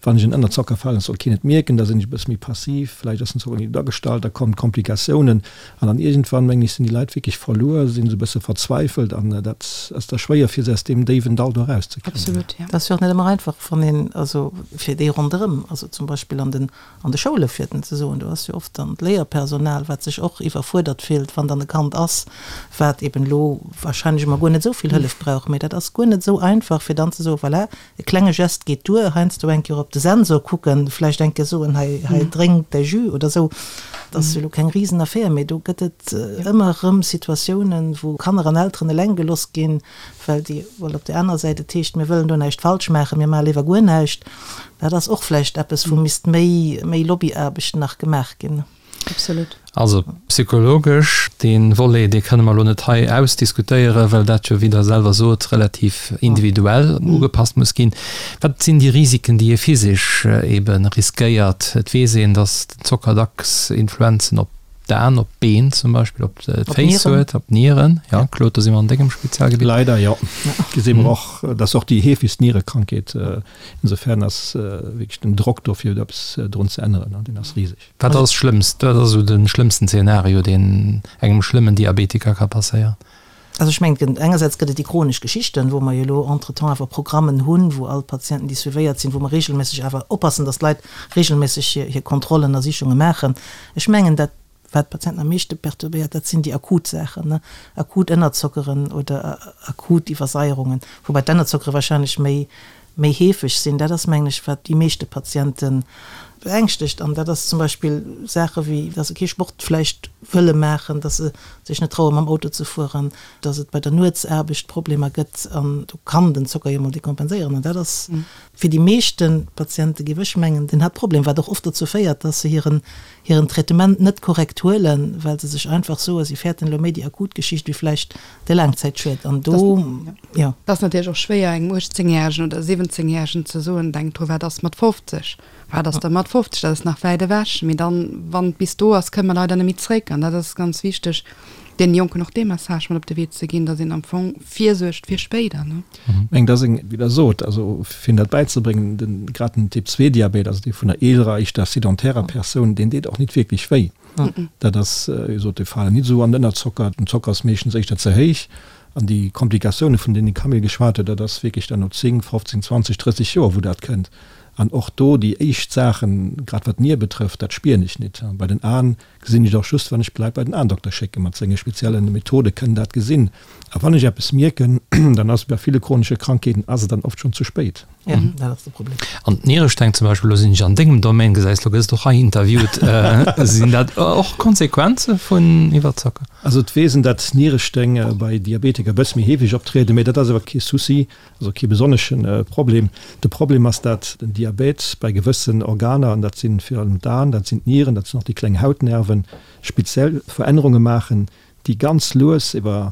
wann ech en Ënnerzocker falen, soll keen et mierken, da sinn ech e bësse méi passiv, vläicht ass den Zocker net gutt agestallt, da kommen d'Komplikatiounen an dann iergendwann, mengen ech, sinn déi Leit wierklech verluer, sinn esou e bësse verzweifelt an dat ass da schwéier fir se aus deem déiwen Dall do erauszekréien. Absolut, ja. Dat ass jo och net ëmmer einfach, wann een, also fir déi ronderëm, also zum Beispill an den An de Schoule fir den ze soen, do ass jo oft dann d'Léierpersonal, wat sech och iwwerfuerdert fillt, wann dann e Kand ass, wat eben elo wahrscheinlech emol guer net esou vill Hëllef brauch. Mee dat ass guer net esou einfach, fir dann ze soen, voilà, e klenge Gest geet duer, heiansdo eng Kéier op de Sensor kucken, vläicht eng Kéier soen, hei, hei drénk däi Jus oder esou. Dat ass jo elo keng Risenaffär, mee do gëtt et ëmmer erëm Situatiounen, wou Kanner an Elteren eleng geloss ginn, well déi, well op där anerer Säit et heescht, mir wëllen do näischt falsch maachen, mir maache léiwer guer näischt. Dat ass och vläicht eppes, wou misst méi, méi Lobbyaarbecht nach gemaach ginn. Absolut. Also psychologesch, dee Volet, dee kënne mer elo net hei ausdiskutéieren, well dat jo, wéi Der selwer sot, relativ individuell ugepasst muss ginn. Wat sinn déi Risiken, déi ee physisch ebe riskéiert? Et weess een, datt den Zocker dacks Influenzen op D'Aen, op d'Been zum Beispill, op d'Féiss huet, op d'Nieren. Ja, Claude, do si mer an dengem Spezialgebitt. Leider jo. Gesi mer och, dat ass och déi heefegst Nierekrankheet. Insofern ass wierklech den Drock do fir eppes drun ze änneren, deen ass riseg. Wat ass d'Schlëmmst, wat ass esou de schlëmmsten Zeenario, deen engem schlëmmen Diabetiker ka passéieren? Also ech mengen, engersäits gëtt et déi chronesch Geschichten, wou mer jo elo entretemps awer Programmen hunn, wou all d'Patienten, déi suivéiert sinn, wou mer regelméisseg awer oppassen, dass d'Leit regelméisseg hir, hir Kontrollen a Sichunge maachen. Ech mengen, dat, wat d'Patienten am meeschte perturbéiert, dat sinn déi akut Saachen, ne, akut Ënnerzockeren oder akut Iwwersaierungen, woubäi d'Ennerzockere wahrscheinlech méi, méi heefeg sinn. Dat ass, mengen ech, wat déi meeschte Patiente beängschtegt. An dat ass zum Beispill Saache wéi, dass se kee Sport vläicht wëlle maachen, dass se sech net traue mam Auto ze fueren, dass et bei der Nuetsaarbecht Problemer gëtt. An do kann den Zocker jo mol dekompenséieren. An dat ass fir déi meeschte Patiente, géif ech mengen, den Haaptproblem, wat och oft dozou féiert, dass se hiren hiren Traitement net korrekt huelen, well se sech einfach soen, si fäerten elo méi déi akut Geschicht wéi vläicht de Laangzäitschued. An do, jo. Et ass natierlech och schwéier engem 18 järegen oder 17 järegen ze soen, denk dru wat ass mat 50, wat ass da mat 50, dat ass nach wäit ewech. Mee dann, wann et bis do ass, kënne mer leider net méi zréck. An dat ass ganz wichteg, deenen Jonken och dee Message mat op de Wee ze ginn, datt een am Fong virsuergt fir spéider, ne. Ech mengen, dat ass eng, wéi Der sot, also fir hinnen dat bäizebréngen, den, grad den Typ II-Diabet, also dee vun der eelerer, éischter sedentärer Persoun, deen deet och nit wierklech wéi. Dat ass, wéi gesot, déi falen nit esou an den Ënnerzocker, den Zocker ass meeschtens éischter ze héich. An déi Komplikatioune vun deenen de Camille geschwat huet, dat ass wierklech dann no 10, 15, 20, 30 Joer, wou dat kënnt. An och do déi éischt Saachen, grad wat d'Nier betrëfft, dat spieren ech nit. Bei den Aen gesinn ech et och just, wann ech d'Leit bei den Aendokter schécken. Mat senge spezielle Methode kënnen dat gesinn. A wann ech eppes mierken, dann ass et bei ville chronesche Krankheeten ass et dann oft schonn ze spéit. Ja, dat ass de Problem. An d'Nieresteng zum Beispill, elo sinn ech an dengem Domaine, gesäis, elo gëss de och hei interviewt, sinn dat och Konsequenze vun Iwwerzocker? Also et weess een, datt Nieresteng bei Diabetiker e bësse méi heefeg optrieden, mee dat ass awer kee Souci, also kee besonnesche Problem. De Problem ass, datt den Diabet bei gewëssen Organer, an dat si virun allem d'Aen, dat sinn d'Nieren, dat sinn och déi kleng Hautnerven, speziell Verännerunge maachen, déi ganz lues iwwer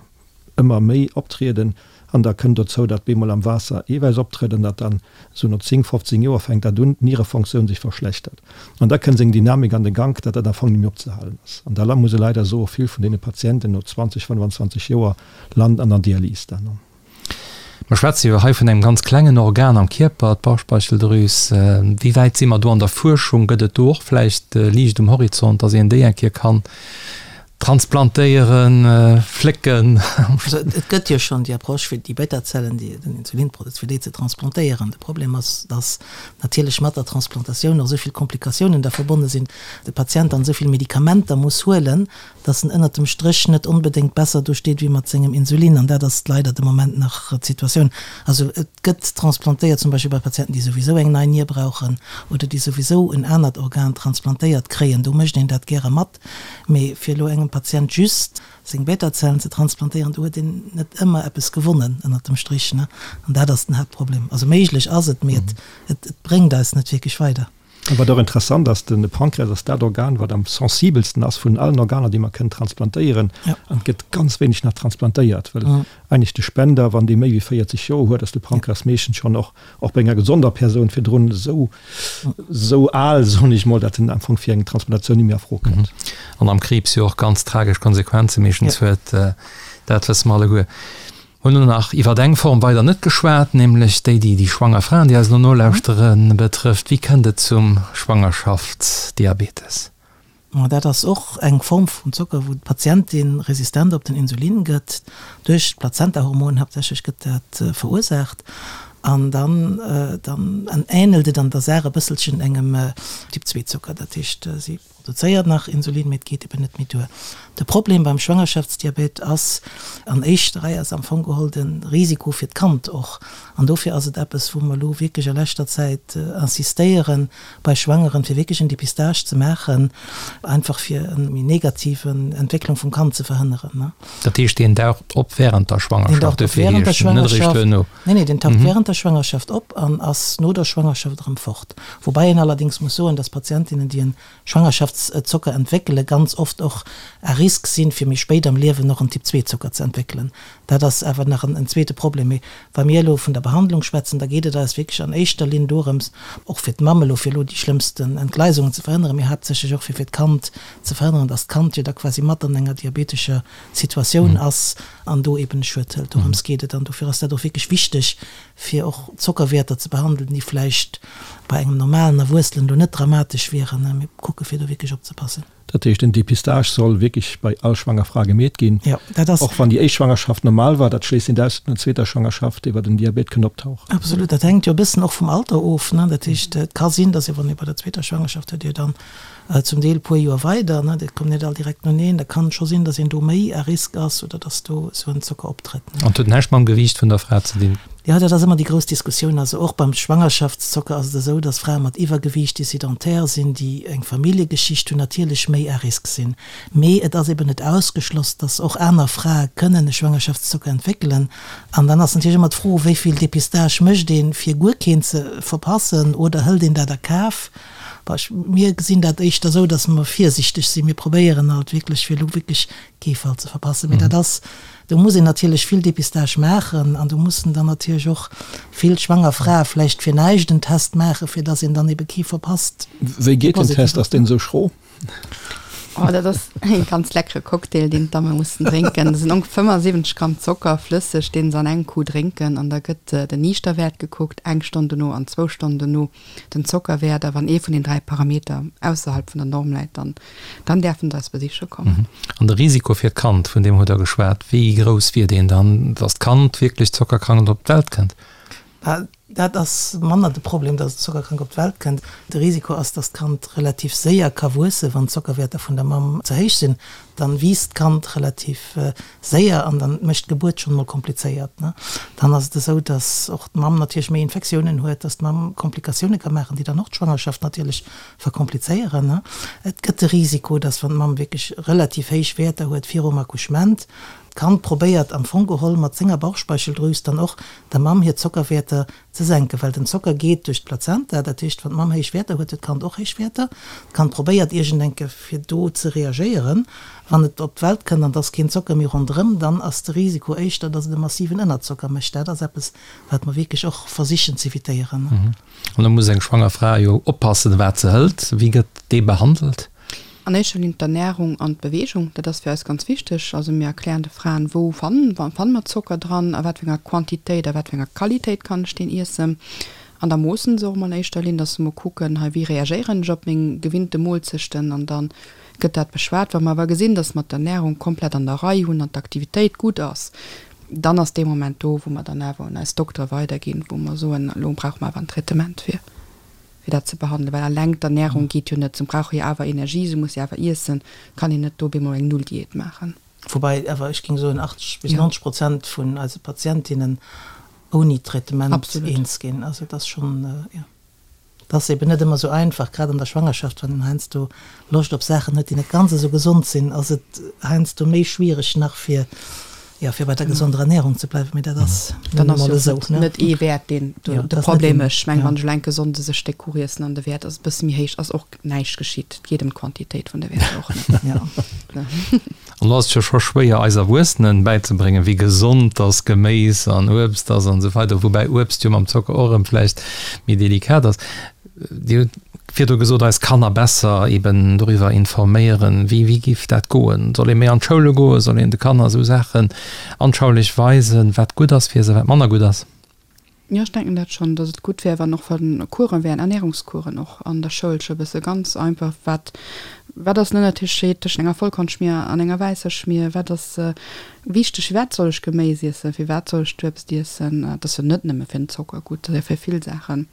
ëmmer méi optrieden an da kënnt dozou, datt bemol am Waasser Eewäiss optrëtt an datt dann esou no 10, 15 Joer fänkt dat un, d'Nierefonctioun sech verschlechtert an da kënnt seng Dynamik an de Gank, datt dat am Fong net méi opzehalen ass. An da muss e leider soen, vill vun deene Patienten no 20, 25 Joer landen an der Dialys dann. Mer schwätze jo hei vun engem ganz klengen Organ am Kierper, d'Bauchspeicheldrüs. Wéi wäit si mer do an der Fuerschung? Gëtt et do och vläicht Liicht um Horizont, datt een déi eng Kéier kann transplantéieren, flécken? Also et gëtt jo schonn déi Approche fir déi Beta-Zellen, déi den Insulin produzéiert, fir déi ze transplantéieren. De Problem ass, datt natierlech mat der Transplantatioun och esou vill Komplikatiounen da verbonne sinn, de Patient dann esou vill Medikamenter muss huelen, dass en ënnert dem Stréch net onbedéngt besser do steet wéi mat sengem Insulin, an dat ass leider de Moment nach d'Situatioun. Also et gëtt transplantéiert zum Beispill bei Patienten, déi souwisou eng nei Nier brauchen oder déi souwisou en anert Organ transplantéiert kréien, do mécht een dat gäre mat. Mee fir elo engem Patient just seng Beta-Zellen ze transplantéieren, do huet een net ëmmer eppes gewonnen ënnert dem Strich, ne? An dat ass den Haaptproblem. Also méiglech ass et, mee et bréngt eis net wierklech weider. A wat och interessant ass, de Pankreas ass dat Organ, wat am sensibelsten ass vun allen Organer, déi mer kënnen transplantéieren. An et gëtt ganz wéineg nach transplantéiert, well eigentlech de Spender, wann dee méi wéi 40 Joer huet, ass de Pankreas meeschtens schonn och, och bei enger gesonder Persoun virdrun esou, esou al, soen ech mol, datt en am Fong fir eng Transplantatioun net méi a Fro kënnt. An am Kriibs jo och ganz tragesch Konsequenze meeschtens huet, dat wësse mer alleguer. Hunn elo nach iwwert eng Form weider net geschwat, nämlech déi, déi déi schwanger Fraen, déi eis elo nolauschteren, betrëfft. Wéi kënnt et zum Schwangerschaftsdiabetes? Ma dat ass och eng Form vum Zocker, wou d'Patientin resistent op den Insulin gëtt, duerch d'Plazentahormon haaptsächlech gëtt dat verursaacht. An dann dann änelt et an der Saach e bësselchen engem Typ 2 Zocker. Dat heescht, si produzéiert nach Insulin, mee et geet eben net méi duer. De Problem beim Schwangerschaftsdiabet ass an éischter Rei ass am Fong geholl de Risiko fir d'Kand och. An dofir ass et eppes, wou mer elo wierklech a leschter Zäit insistéieren bei Schwangeren, fir wierklech en Dépistage ze maachen, einfach fir eng méi negativ Entwécklung vum Kand ze verhënneren. Dat heescht, deen daucht op während der Schwangerschaft, dofir heescht en, net eréischt duerno? Nee, nee, deen taucht während der Schwangerschaft op an ass no der Schwangerschaft erëm fort. Woubäi een allerdéngs muss soen, dass Patientinnen, déi en Schwangerschaftszocker entwéckelen, ganz oft och à risque sinn, fir méi spéit am Liewen och en Typ-II-Zocker ze entwéckelen. Dat ass awer nach en zweete Problem. Mee wa mir elo vun der Behandlung schwätzen, da geet et eis wierklech an éischter Linn dorëms, och fir d'Mamm elo, fir elo déi schlëmmsten Entgleisungen ze verhënneren, mee haaptsächlech och fir fir d'Kand ze verhënneren, dass d'Kand jo da quasi mat an enger diabetescher Situatioun ass an do eben e Schued hëlt. Dorëms geet et an dofir ass dat och wierklech wichteg, fir och Zockerwäerter ze behandelen, déi vläicht bei engem normalen Erwuessenen elo net dramatesch wieren. Mir kucke fir do wierklech opzepassen. Dat heescht, den Dépistage soll wierklech bei all schwanger Fra gemeet ginn, Jo, dat ass. och wann déi éischt Schwangerschaft normal war. Dat schléisst net aus, datt an der zweeter Schwangerschaft iwwer den Diabet kënnt optauchen. Absolut, dat hänkt jo e bëssen och vum Alter of, ne. Dat heescht, et ka sinn, datt ee wann ee bei der zweeter Schwangerschaft huet, Dir dann Zum Deel puer Joer weider, ne, dat kommt net all direkt noeneen. Da kann et scho sinn, datt een do méi à risque ass oder datt do esou en Zocker optrëtt, ne. An et huet näischt mam Gewiicht vun der Fra ze dinn? Jo, dat ass ëmmer déi grouss Diskussioun. Also och beim Schwangerschaftszocker ass et esou, datt Frae mat Iwwergewiicht, déi sédentaire sinn, déi eng Familljegeschicht hunn, natierlech méi à risque sinn. Mee et ass eben net ausgeschloss, datt och aner Frae kënnen e Schwangerschaftszocker entwéckelen. An dann ass natierlech ëmmer d'Fro, wéi vill Dépistage mécht een, fir guer keen ze verpassen, oder hëlt een dat a Kaf? Bon, ech, mir gesinn dat éischter esou, datt mer virsichteg sinn. Mir probéieren alt wierklech, fir elo wierklech kee Fall ze verpassen. Mee dat ass, do muss een natierlech vill Dépistage maachen an do mussen dann natierlech och vill schwanger Frae vläicht fir näischt en Test maachen, fir datt een dann ebe kee verpasst. Wéi geet den Test? Ass deen esou schro? Oh, dat ass e ganz leckere Cocktail, deen d'Damme mussen drénken. Dat sinn ongeféier 75 Gramm Zocker, flësseg, deen se an engem Coup drénken. An da gëtt den Niichterwäert gekuckt, eng Stonn dono an zwou Stonnen dono den Zockerwäert. A wann ee vun den 3 Parameter ausserhalb vun der Norm läit, dann, dann däerfen se eis besiche kommen. An de Risiko fir d'Kand, vun deem hutt Der geschwat, wéi grouss wier deen dann, dass d'Kand wierklech zockerkrank op d'Welt kënnt? Dat ass manner de Problem, dass et zockerkrank op d'Welt kënnt. De Risiko ass, dass d'Kand relativ séier ka wuessen, wann d'Zockerwäerter vun der Mamm ze héich sinn. Dann wiisst d'Kand relativ séier an dann mécht d'Gebuert schonn emol komplizéiert. Dann ass et esou, dass och d'Mamm natierlech méi Infektiounen huet, dass d'Mamm Komplikatioune ka maachen, déi dann och d'Schwangerschaft natierlech verkomplizéieren. Et gëtt de Risiko, dass wann d'Mamm wierklech relativ héich Wäerter huet virum Accouchement, d'Kand probéiert am Fong geholl mat senger Bauchspeicheldrüs dann och der Mamm hir Zockerwäerter ze senken, well den Zocker geet duerch d'Plazenta, dat heescht wann d'Mamm héich Wäerter huet, huet d'Kand och héich Wäerter. D'Kand probéiert iergendenke fir do ze reagéieren. Wann et op d'Welt kënnt an et ass keen Zocker méi ronderëm, dann ass de Risiko éischter, datt et e massiven Ënnerzocker mécht. Dat ass eppes, wat mer wierklech och versichen z'evitéieren. An da muss eng schwanger Fra jo oppassen, wat se hëlt. Wéi gëtt dee behandelt? An éischter Linn d'Ernärung an d'Beweegung, dat ass fir eis ganz wichteg. Also mir erklären de Fraen, wou fanne mer Zocker dran, a wat fir enger Quantitéit, a wat fir enger Qualitéit kann ech deen iessen. An da moossen se och emol an éischter Linn, dass se emol kucken, hei wéi reagéieren ech op meng gewinnte Moolzechten an da gëtt dat beschwat. Wa mer awer gesinn, dass mer d'Ernärung komplett an der Rei hunn an d'Aktivitéit gutt ass, dann ass dee Moment do, wou mer dann awer un eis Doktere weiderginn, wou mer soen, elo brauche mer awer en Traitement fir. fir dat ze behandelen, well alleng d'Ernärung geet jo net, se brauche jo awer Energie, se musse jo awer iessen, kann een net do op eemol eng Null-Diät maachen. Woubäi awer ech géing soen, 80 bis 90 Prozent vun eise Patientinnen ouni Traitement eens ginn. Also et ass schonn, jo, et ass eben net ëmmer esou einfach, grad an der Schwangerschaft, wann een heiansdo Loscht op Saachen huet, déi net ganz esou gesond sinn, ass et heiansdo méi schwiereg nach fir. Jo, fir bei der gesonder Ernährung ze bleiwen, mee dat ass nun emol esou, ne? Net ee Wäert, deen de Problem mécht. Ech mengen, wann ech elo enke sonndes e Stéck Kuch iessen an de Wäert ass e bësse méi héich, ass och näischt geschitt. Et geet ëm d'Quantitéit vun de Wäerter och net. An do ass et jo scho schwéier, eis Erwuessenen bäizebréngen, wéi gesond dass Geméis an Uebst ass an esou weider, woubäi Uebst jo mam Zocker och erëm vläicht méi delikat ass. Dir hutt virdru gesot, eis Kanner besser eben doriwwer informéieren. Wéi, wéi géif dat goen? Soll ee méi an d'Schoule goen? Soll een de Kanner esou Saachen anschaulich weisen, wat gutt ass fir se, wat manner gutt ass? Jo, ech denken dat schonn, datt et gutt wär, wann och wa Coursen wären, Ernährungscoursen och an der Schoul scho e bësse ganz einfach, wat, wat ass den Ënnertescheed tëschent enger Vollkornschmier an enger wäisser Schmier, wat ass wichteg, firwat soll ech Geméis iessen, firwat soll ech d'Uebst iessen, dat ass jo net nëmme fir den Zocker gutt, dat ass jo fir vill Saachen.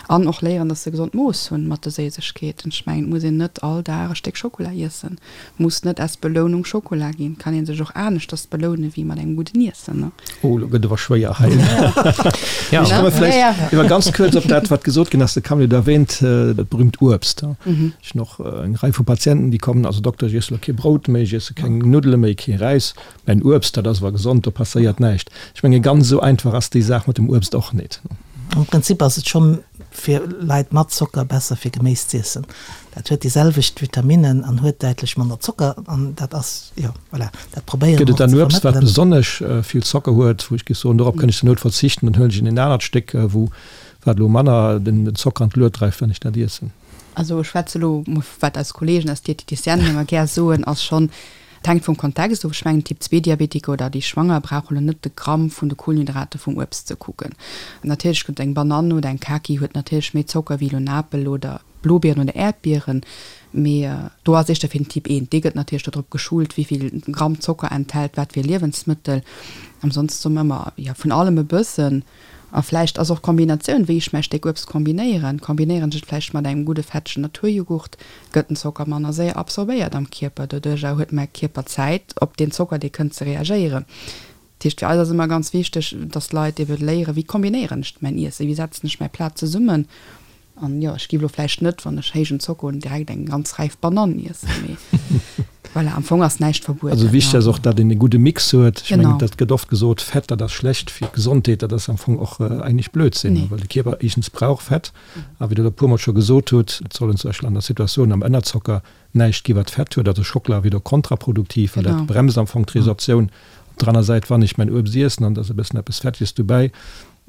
An och léieren, dass se gesond Mooss hunn mat de Séisegkeeten. Ech mengen, et muss een net all Dag e Stéck Schokola iessen. Et muss net als Belounung Schokola ginn. Et kann ee sech och aneschters beloune wéi mat engem gudden Iessen, ne? Oh, elo gëtt et awer schwéier hei. Ech komme vläicht iwwer ganz kuerz op dat, wat gesot ginn ass. De Camille huet erwähnt, dat berühmt Uebst. Ech hunn och eng Rei vu Patienten, déi kommen, Also Dokter, ech iesse elo kee Brout méi, ech iesse keng Nuddele méi, kee Räis. Mäin Uebst, dat ass awer gesond, do passéiert näischt. Ech menge ganz esou einfach ass déi Saach mat dem Uebst och nit. Am Prinzip ass et schonn fir Leit mat Zocker besser fir Geméis z'iessen. Dat huet déi selwecht Vitaminnen an huet däitlech manner Zocker an dat ass, jo voilà, dat probéiere Gëtt mer et och dann ze Uebst wat vermëttelen. besonnesch vill Zocker huet, wou ech géif soen, dorop kënnt ech zur Nout verzichten, dann huelen ech en anert Stéck wou wat elo manner den Zocker an d'Lued dreift, wann ech dat iessen? Also ech schwätze elo mol wat eis Kollegen, eis Diététicienen ëmmer gär soen, ass schonn, Et hänkt vum Kontext of. Ech mengen, Typ-Zwee-Diabetiker oder déi Schwanger brauche lo net de Gramm vun de Kohlenhydrate vum Uebst ze kucken. Natierlech gëtt eng Banann oder eng Kaki huet natierlech méi Zocker wéi elo en Apel oder Blobieren oder Äerdbieren. Mee do ass éischter fir den Typ 1, dee gëtt natierlech dodrop geschult, wéi vill Gramm Zocker enthält wat fir e Liewensmëttel. Ansonsten soe mer ëmmer, jo, vun allem e bëssen. A vläicht ass och d'Kombinatioun, wéi ech mäi Stéck Uebst kombinéieren, kombinéieren ech et vläicht mat engem gudde fettegen Naturjoghurt, gëtt den Zocker manner séier absorbéiert am Kierper. Doduercher huet mäi Kierper Zäit, op deen Zocker, dee kënnt, ze reagéieren. Dat heescht, fir eis ass ëmmer ganz wichteg, dass d'Leit ebe léieren, wéi kombinéieren ech mäin Iessen, wéi setzen ech mäi Plat zesummen. An jo, ech giff elo vläicht net, wann ech héijen Zocker hunn, direkt eng ganz räif Banann iessen, mee voilà, am Fong ass näischt verbueden. Also wichteg ass och, datt een e gudde Mix huet. Ech mengen, dat gëtt oft gesot, Fett, dat ass schlecht fir d'Gesondheet. Dat ass am Fong och eigentlech Blödsinn, well de Kierper éischtens brauch Fett a wéi Der elo e puermol scho gesot hutt, et sollen zum Beispill an der Situatioun am Ënnerzocker näischt gi wat Fett huet. Also Schockela wier do kontraproduktiv, well dat bremst am Fong d'Resorptioun. Op der aner Säit, wann ech mäin Uebst iessen an da ass e bëssen eppes Fetteges dobäi,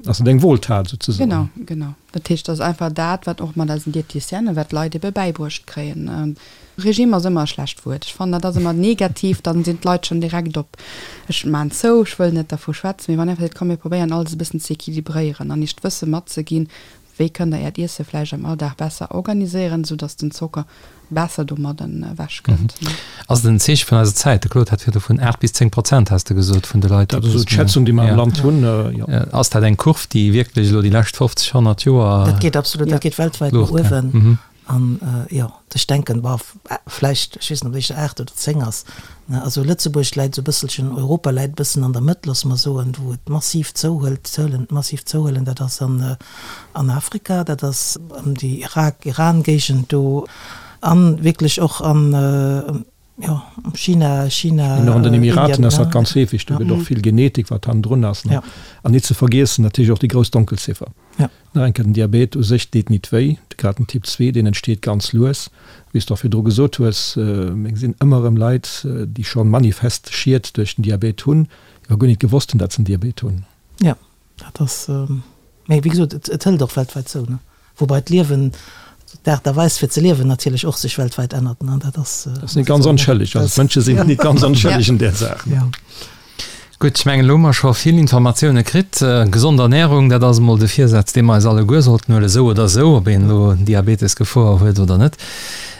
Ass et eng Wohltat souzesoen? Genau, genau. Dat heescht, dat ass einfach dat, wat och mat eisen Diététicienen, wat d'Leit ebe bäibruecht kréien. Regime ass ëmmer e schlecht Wuert. Ech fannen, dat ass ëmmer negativ, dann sinn d'Leit schonn direkt op, ech maan zou, ech wëll net dervu schwätzen. Mee wann een einfach seet, komm mir probéieren alles e bëssen ze équilibréieren an iech d'Wësse matzeginn, Wéi kënnt der äert Iesse vläicht am Alldag besser organiséieren, esou dass den Zocker besser domadden ewech kënnt? Ass et en Zeeche vun eiser Zäit? De Claude hat virdu vun 8 bis 10 Prozent, has de gesot, vun de Leit, déi. Dat ass esou d'Schätzung, déi mer am Land hunn, jo. Ass dat eng Kurv, déi wierklech elo déi lescht 50, 100 Joer. Dat geet absolut, dat geet weltwäit no uewen. An, jo, ech denken, bon, vläicht, ech weess net, ob et éischter 8 oder 10 ass, ne, also Lëtzebuerg läit esou e bësselchen, Europa läit e bëssen an der Mëtt, loosse mer soen, wou et massiv zouhëlt, d'Zuelen massiv zouhuelen, dat ass an, an Afrika, dat ass ëm déi Irak, Iran-Géigend do an wierklech och an, jo, China, China, An och an den Emiraten ass dat ganz heefeg, do gëtt och vill Genetik, wat hannendrun ass, ne. An net ze vergiessen natierlech och déi grouss Donkelziffer. Nach eng Kéier, den Diabet u sech deet nit wéi, grad den Typ 2, deen entsteet ganz lues. Wéi s de och virdru gesot hues, mir gesinn ëmmer erëm Leit, déi scho manifest Schied duerch den Diabet hunn, déi awer guer nit gewosst hunn, datt se en Diabet hunn. Jo, dat ass, mee wéi gesot, et hëlt och weltwäit zou, ne? Woubai d'Liewen, d'Aart a Weis fir ze liewen natierlech och sech weltwäit ännert, ne? Dat ass. Dat ass nit ganz onschëlleg, also d'Mënsche sinn nit ganz onschëlleg an där Saach. Jo. Gutt, ech mengen, elo hu mer scho vill Informatioune kritt. Gesond Ernärung, dat ass emol de Virsaz, dee mer eis alleguer sollten huelen, esou oder esou, ob een elo Diabetesgefor huet oder net.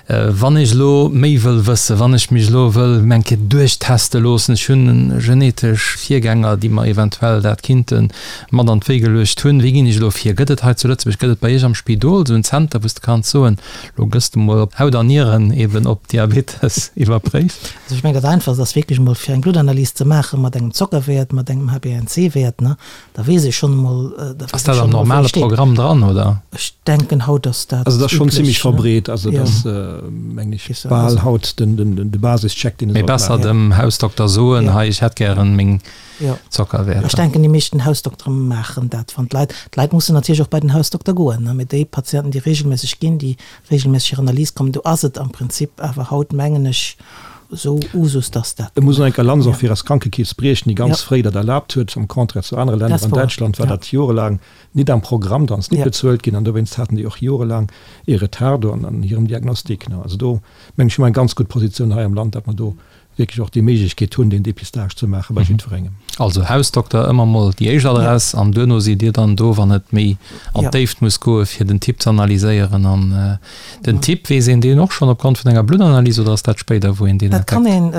Wann ech elo méi wëll wëssen, wann ech mech elo wëll eng Kéier duerchteste loossen, ech hunn genetesch Virgänger, déi mer eventuell dat kinnte mat an d'Wéi geluecht hunn, wéi ginn ech elo vir? Gëtt et hei zu Lëtzebuerg, gëtt et bei Iech am Spidol esou en Zenter, wou s de kanns soen, Lo gëss de mol op Haut an Nieren eben op Diabetes iwwerpréift. Also ech mengen dat einfachst ass wierklech emol fir eng Bluttanalys ze maache mat engem Zockerwäert, mat engem HbA1c-Wäert, ne, da weess ee schonn emol, da Ass weess ee dat am schonn emol wou ee normale steet. Programm dran, oder? Ech denken haut ass dat Also dat ass schonn üblech, zimmlech ne? verbreet. Also Jo. dat. mengen ech, bal haut de Basischeck, deen ee sollt maachen. Mee besser dem Hausdokter soen, hei, ech hätt gären meng Zockerwäerter. Ech denken, déi meeschten Hausdoktere maachen dat, wann d'Leit, d'Leit mussen natierlech och bei den Hausdokter goen, mee déi Patienten, déi regelméisseg ginn, déi regelméisseg hir Analyse kommen, do ass et am Prinzip awer haut, mengen ech, esou Usus, dass dat. Et muss een eng Lanz och fir eis Krankekeess briechen, déi ganz fréi dat erlaabt huet, am Contraire zu anere Länner. An Däitschland war dat jorelaang nit am Programm, dann ass nit bezuelt ginn an dowéinst haten déi och jorelaang ee Retard do an hirem Diagnostic. Also do mengen ech hu mer eng ganz gutt Positioun hei am Land, datt mer do wierklech och déi Méiglechkeet hunn, deen Dépistage ze maache bei jiddwerengem. Also Hausdokter ëmmer mol déi éischt Adress an duerno sidd Dir dann do, wann et méi an d'Déift muss goe fir den Typ ze analyséieren. An den Typ, weess een deen och schonn opgrond vun enger Bluttanalys oder ass dat spéider, wou een deen entdeckt? Dat kann een,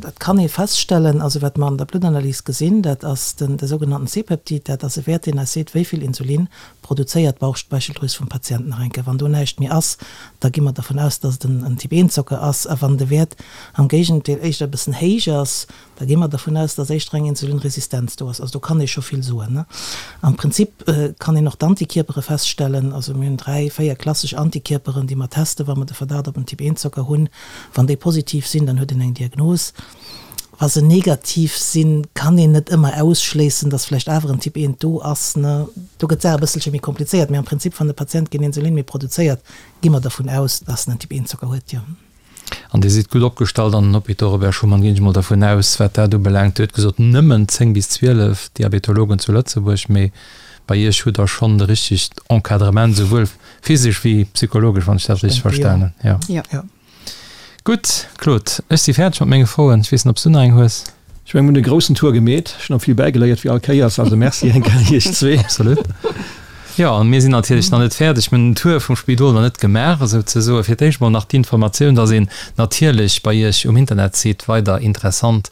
dat kann ee feststellen. Also wat mer an der Bluttanalys gesinn, dat ass den, de sougenannten C-Peptid. Dat ass e Wäert, deen eis seet, wéi vill Insulin produzéiert d'Bauchspeicheldrüs vum Patient nach eng Kéier. Wann do näischt méi ass, da gi mer dervun aus, dass et en Typ I Zocker ass. A wann de Wäert am Géigendeel éischter e bëssen héich ass, da gi mer dervun aus, dass éischter eng Insulinresistenz do ass. Also do kann ee scho vill soen. Am Prinzip kann een och d'Antikierpere feststellen. Also mir hunn 3, 4 klassesch Antikierperen, déi mer testen, wa mer de Verdacht op en Typ I Zocker hunn. Wann déi positiv sinn, dann huet een eng Diagnos. Wa se negativ sinn, kann een net ëmmer ausschléissen, dass vläicht awer en Typ I do ass. Do gëtt d'Saach e bësselche méi komplizéiert. Mee am Prinzip, wann de Patient keen Insulin méi produzéiert, gi mer dervun aus, dass en en Typ I Zocker huet, jo. An Dir sidd gutt opgestallt an den Hôpitaux Robert Schuman, ginn ech mol dervun aus, wat dat ubelaangt. Dir hutt gesot, nëmmen 10 bis 12 Diabetologen zu Lëtzebuerg, mee bei Iech hutt Der schonn de richtegt Encadrement, souwuel physesch wéi psychologesch, wann ech dat richteg verstanen hunn. Jo. Gutt, Claude, ech si fäerdeg mat menge Froen. Ech weess net, ob s du nach eng hues? Ech mengen, mir hunn e groussen Tour gemeet. Ech hunn och vill bäigeléiert, wéi all Kéiers. Also Merci eng Kéier iech zwee. Absolut. Jo, an mir sinn natierlech nach net fäerdeg. Mir hunn den Tour vum Spidol nach net gemaach, esou ze soen. Fir d'éischt mol nach d'Informatioun, dass een natierlech bei iech um Internetsite weider interessant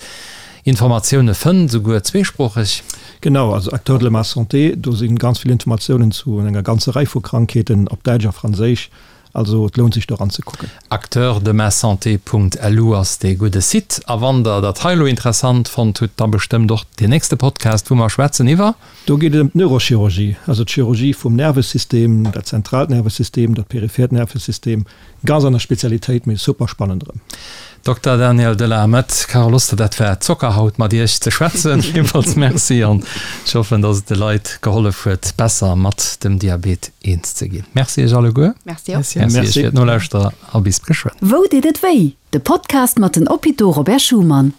Informatioune fënnt, esouguer zweesproocheg. Genau, also Acteurs de ma santé, do si ganz vill Informatiounen zu enger ganzer Rei vu Krankheeten op Däitsch a Franséisch. Also et lount sech do eranzekucken. Acteursdemasanté.lu ass dee gudde Site. A wann der dat hei elo interessant fonnt hutt, da bestëmmt och deen nächste Podcast, wou mer schwätzen iwwer. Do geet et ëm d'Neurochirurgie, also d'Chirurgie vum Nervesystem, dat zentraalt Nervesystem, dat periphert Nervesystem. Ganz aner Spezialitéit, mee super spannend erëm. Dokter Daniel de la Mette, Carole Oster, dat war Zocker haut mat Iech ze schwätzen. Villmools Merci an ech hoffen, dass et de Leit gehollef huet, besser mat dem Diabet eens ze ginn. Merci Iech alleguer. Merci och. Merci Iech fir d'Nolauschterer a bis geschwënn. Wou deet et wéi? De Podcast mat den Hôpitaux Robert Schuman.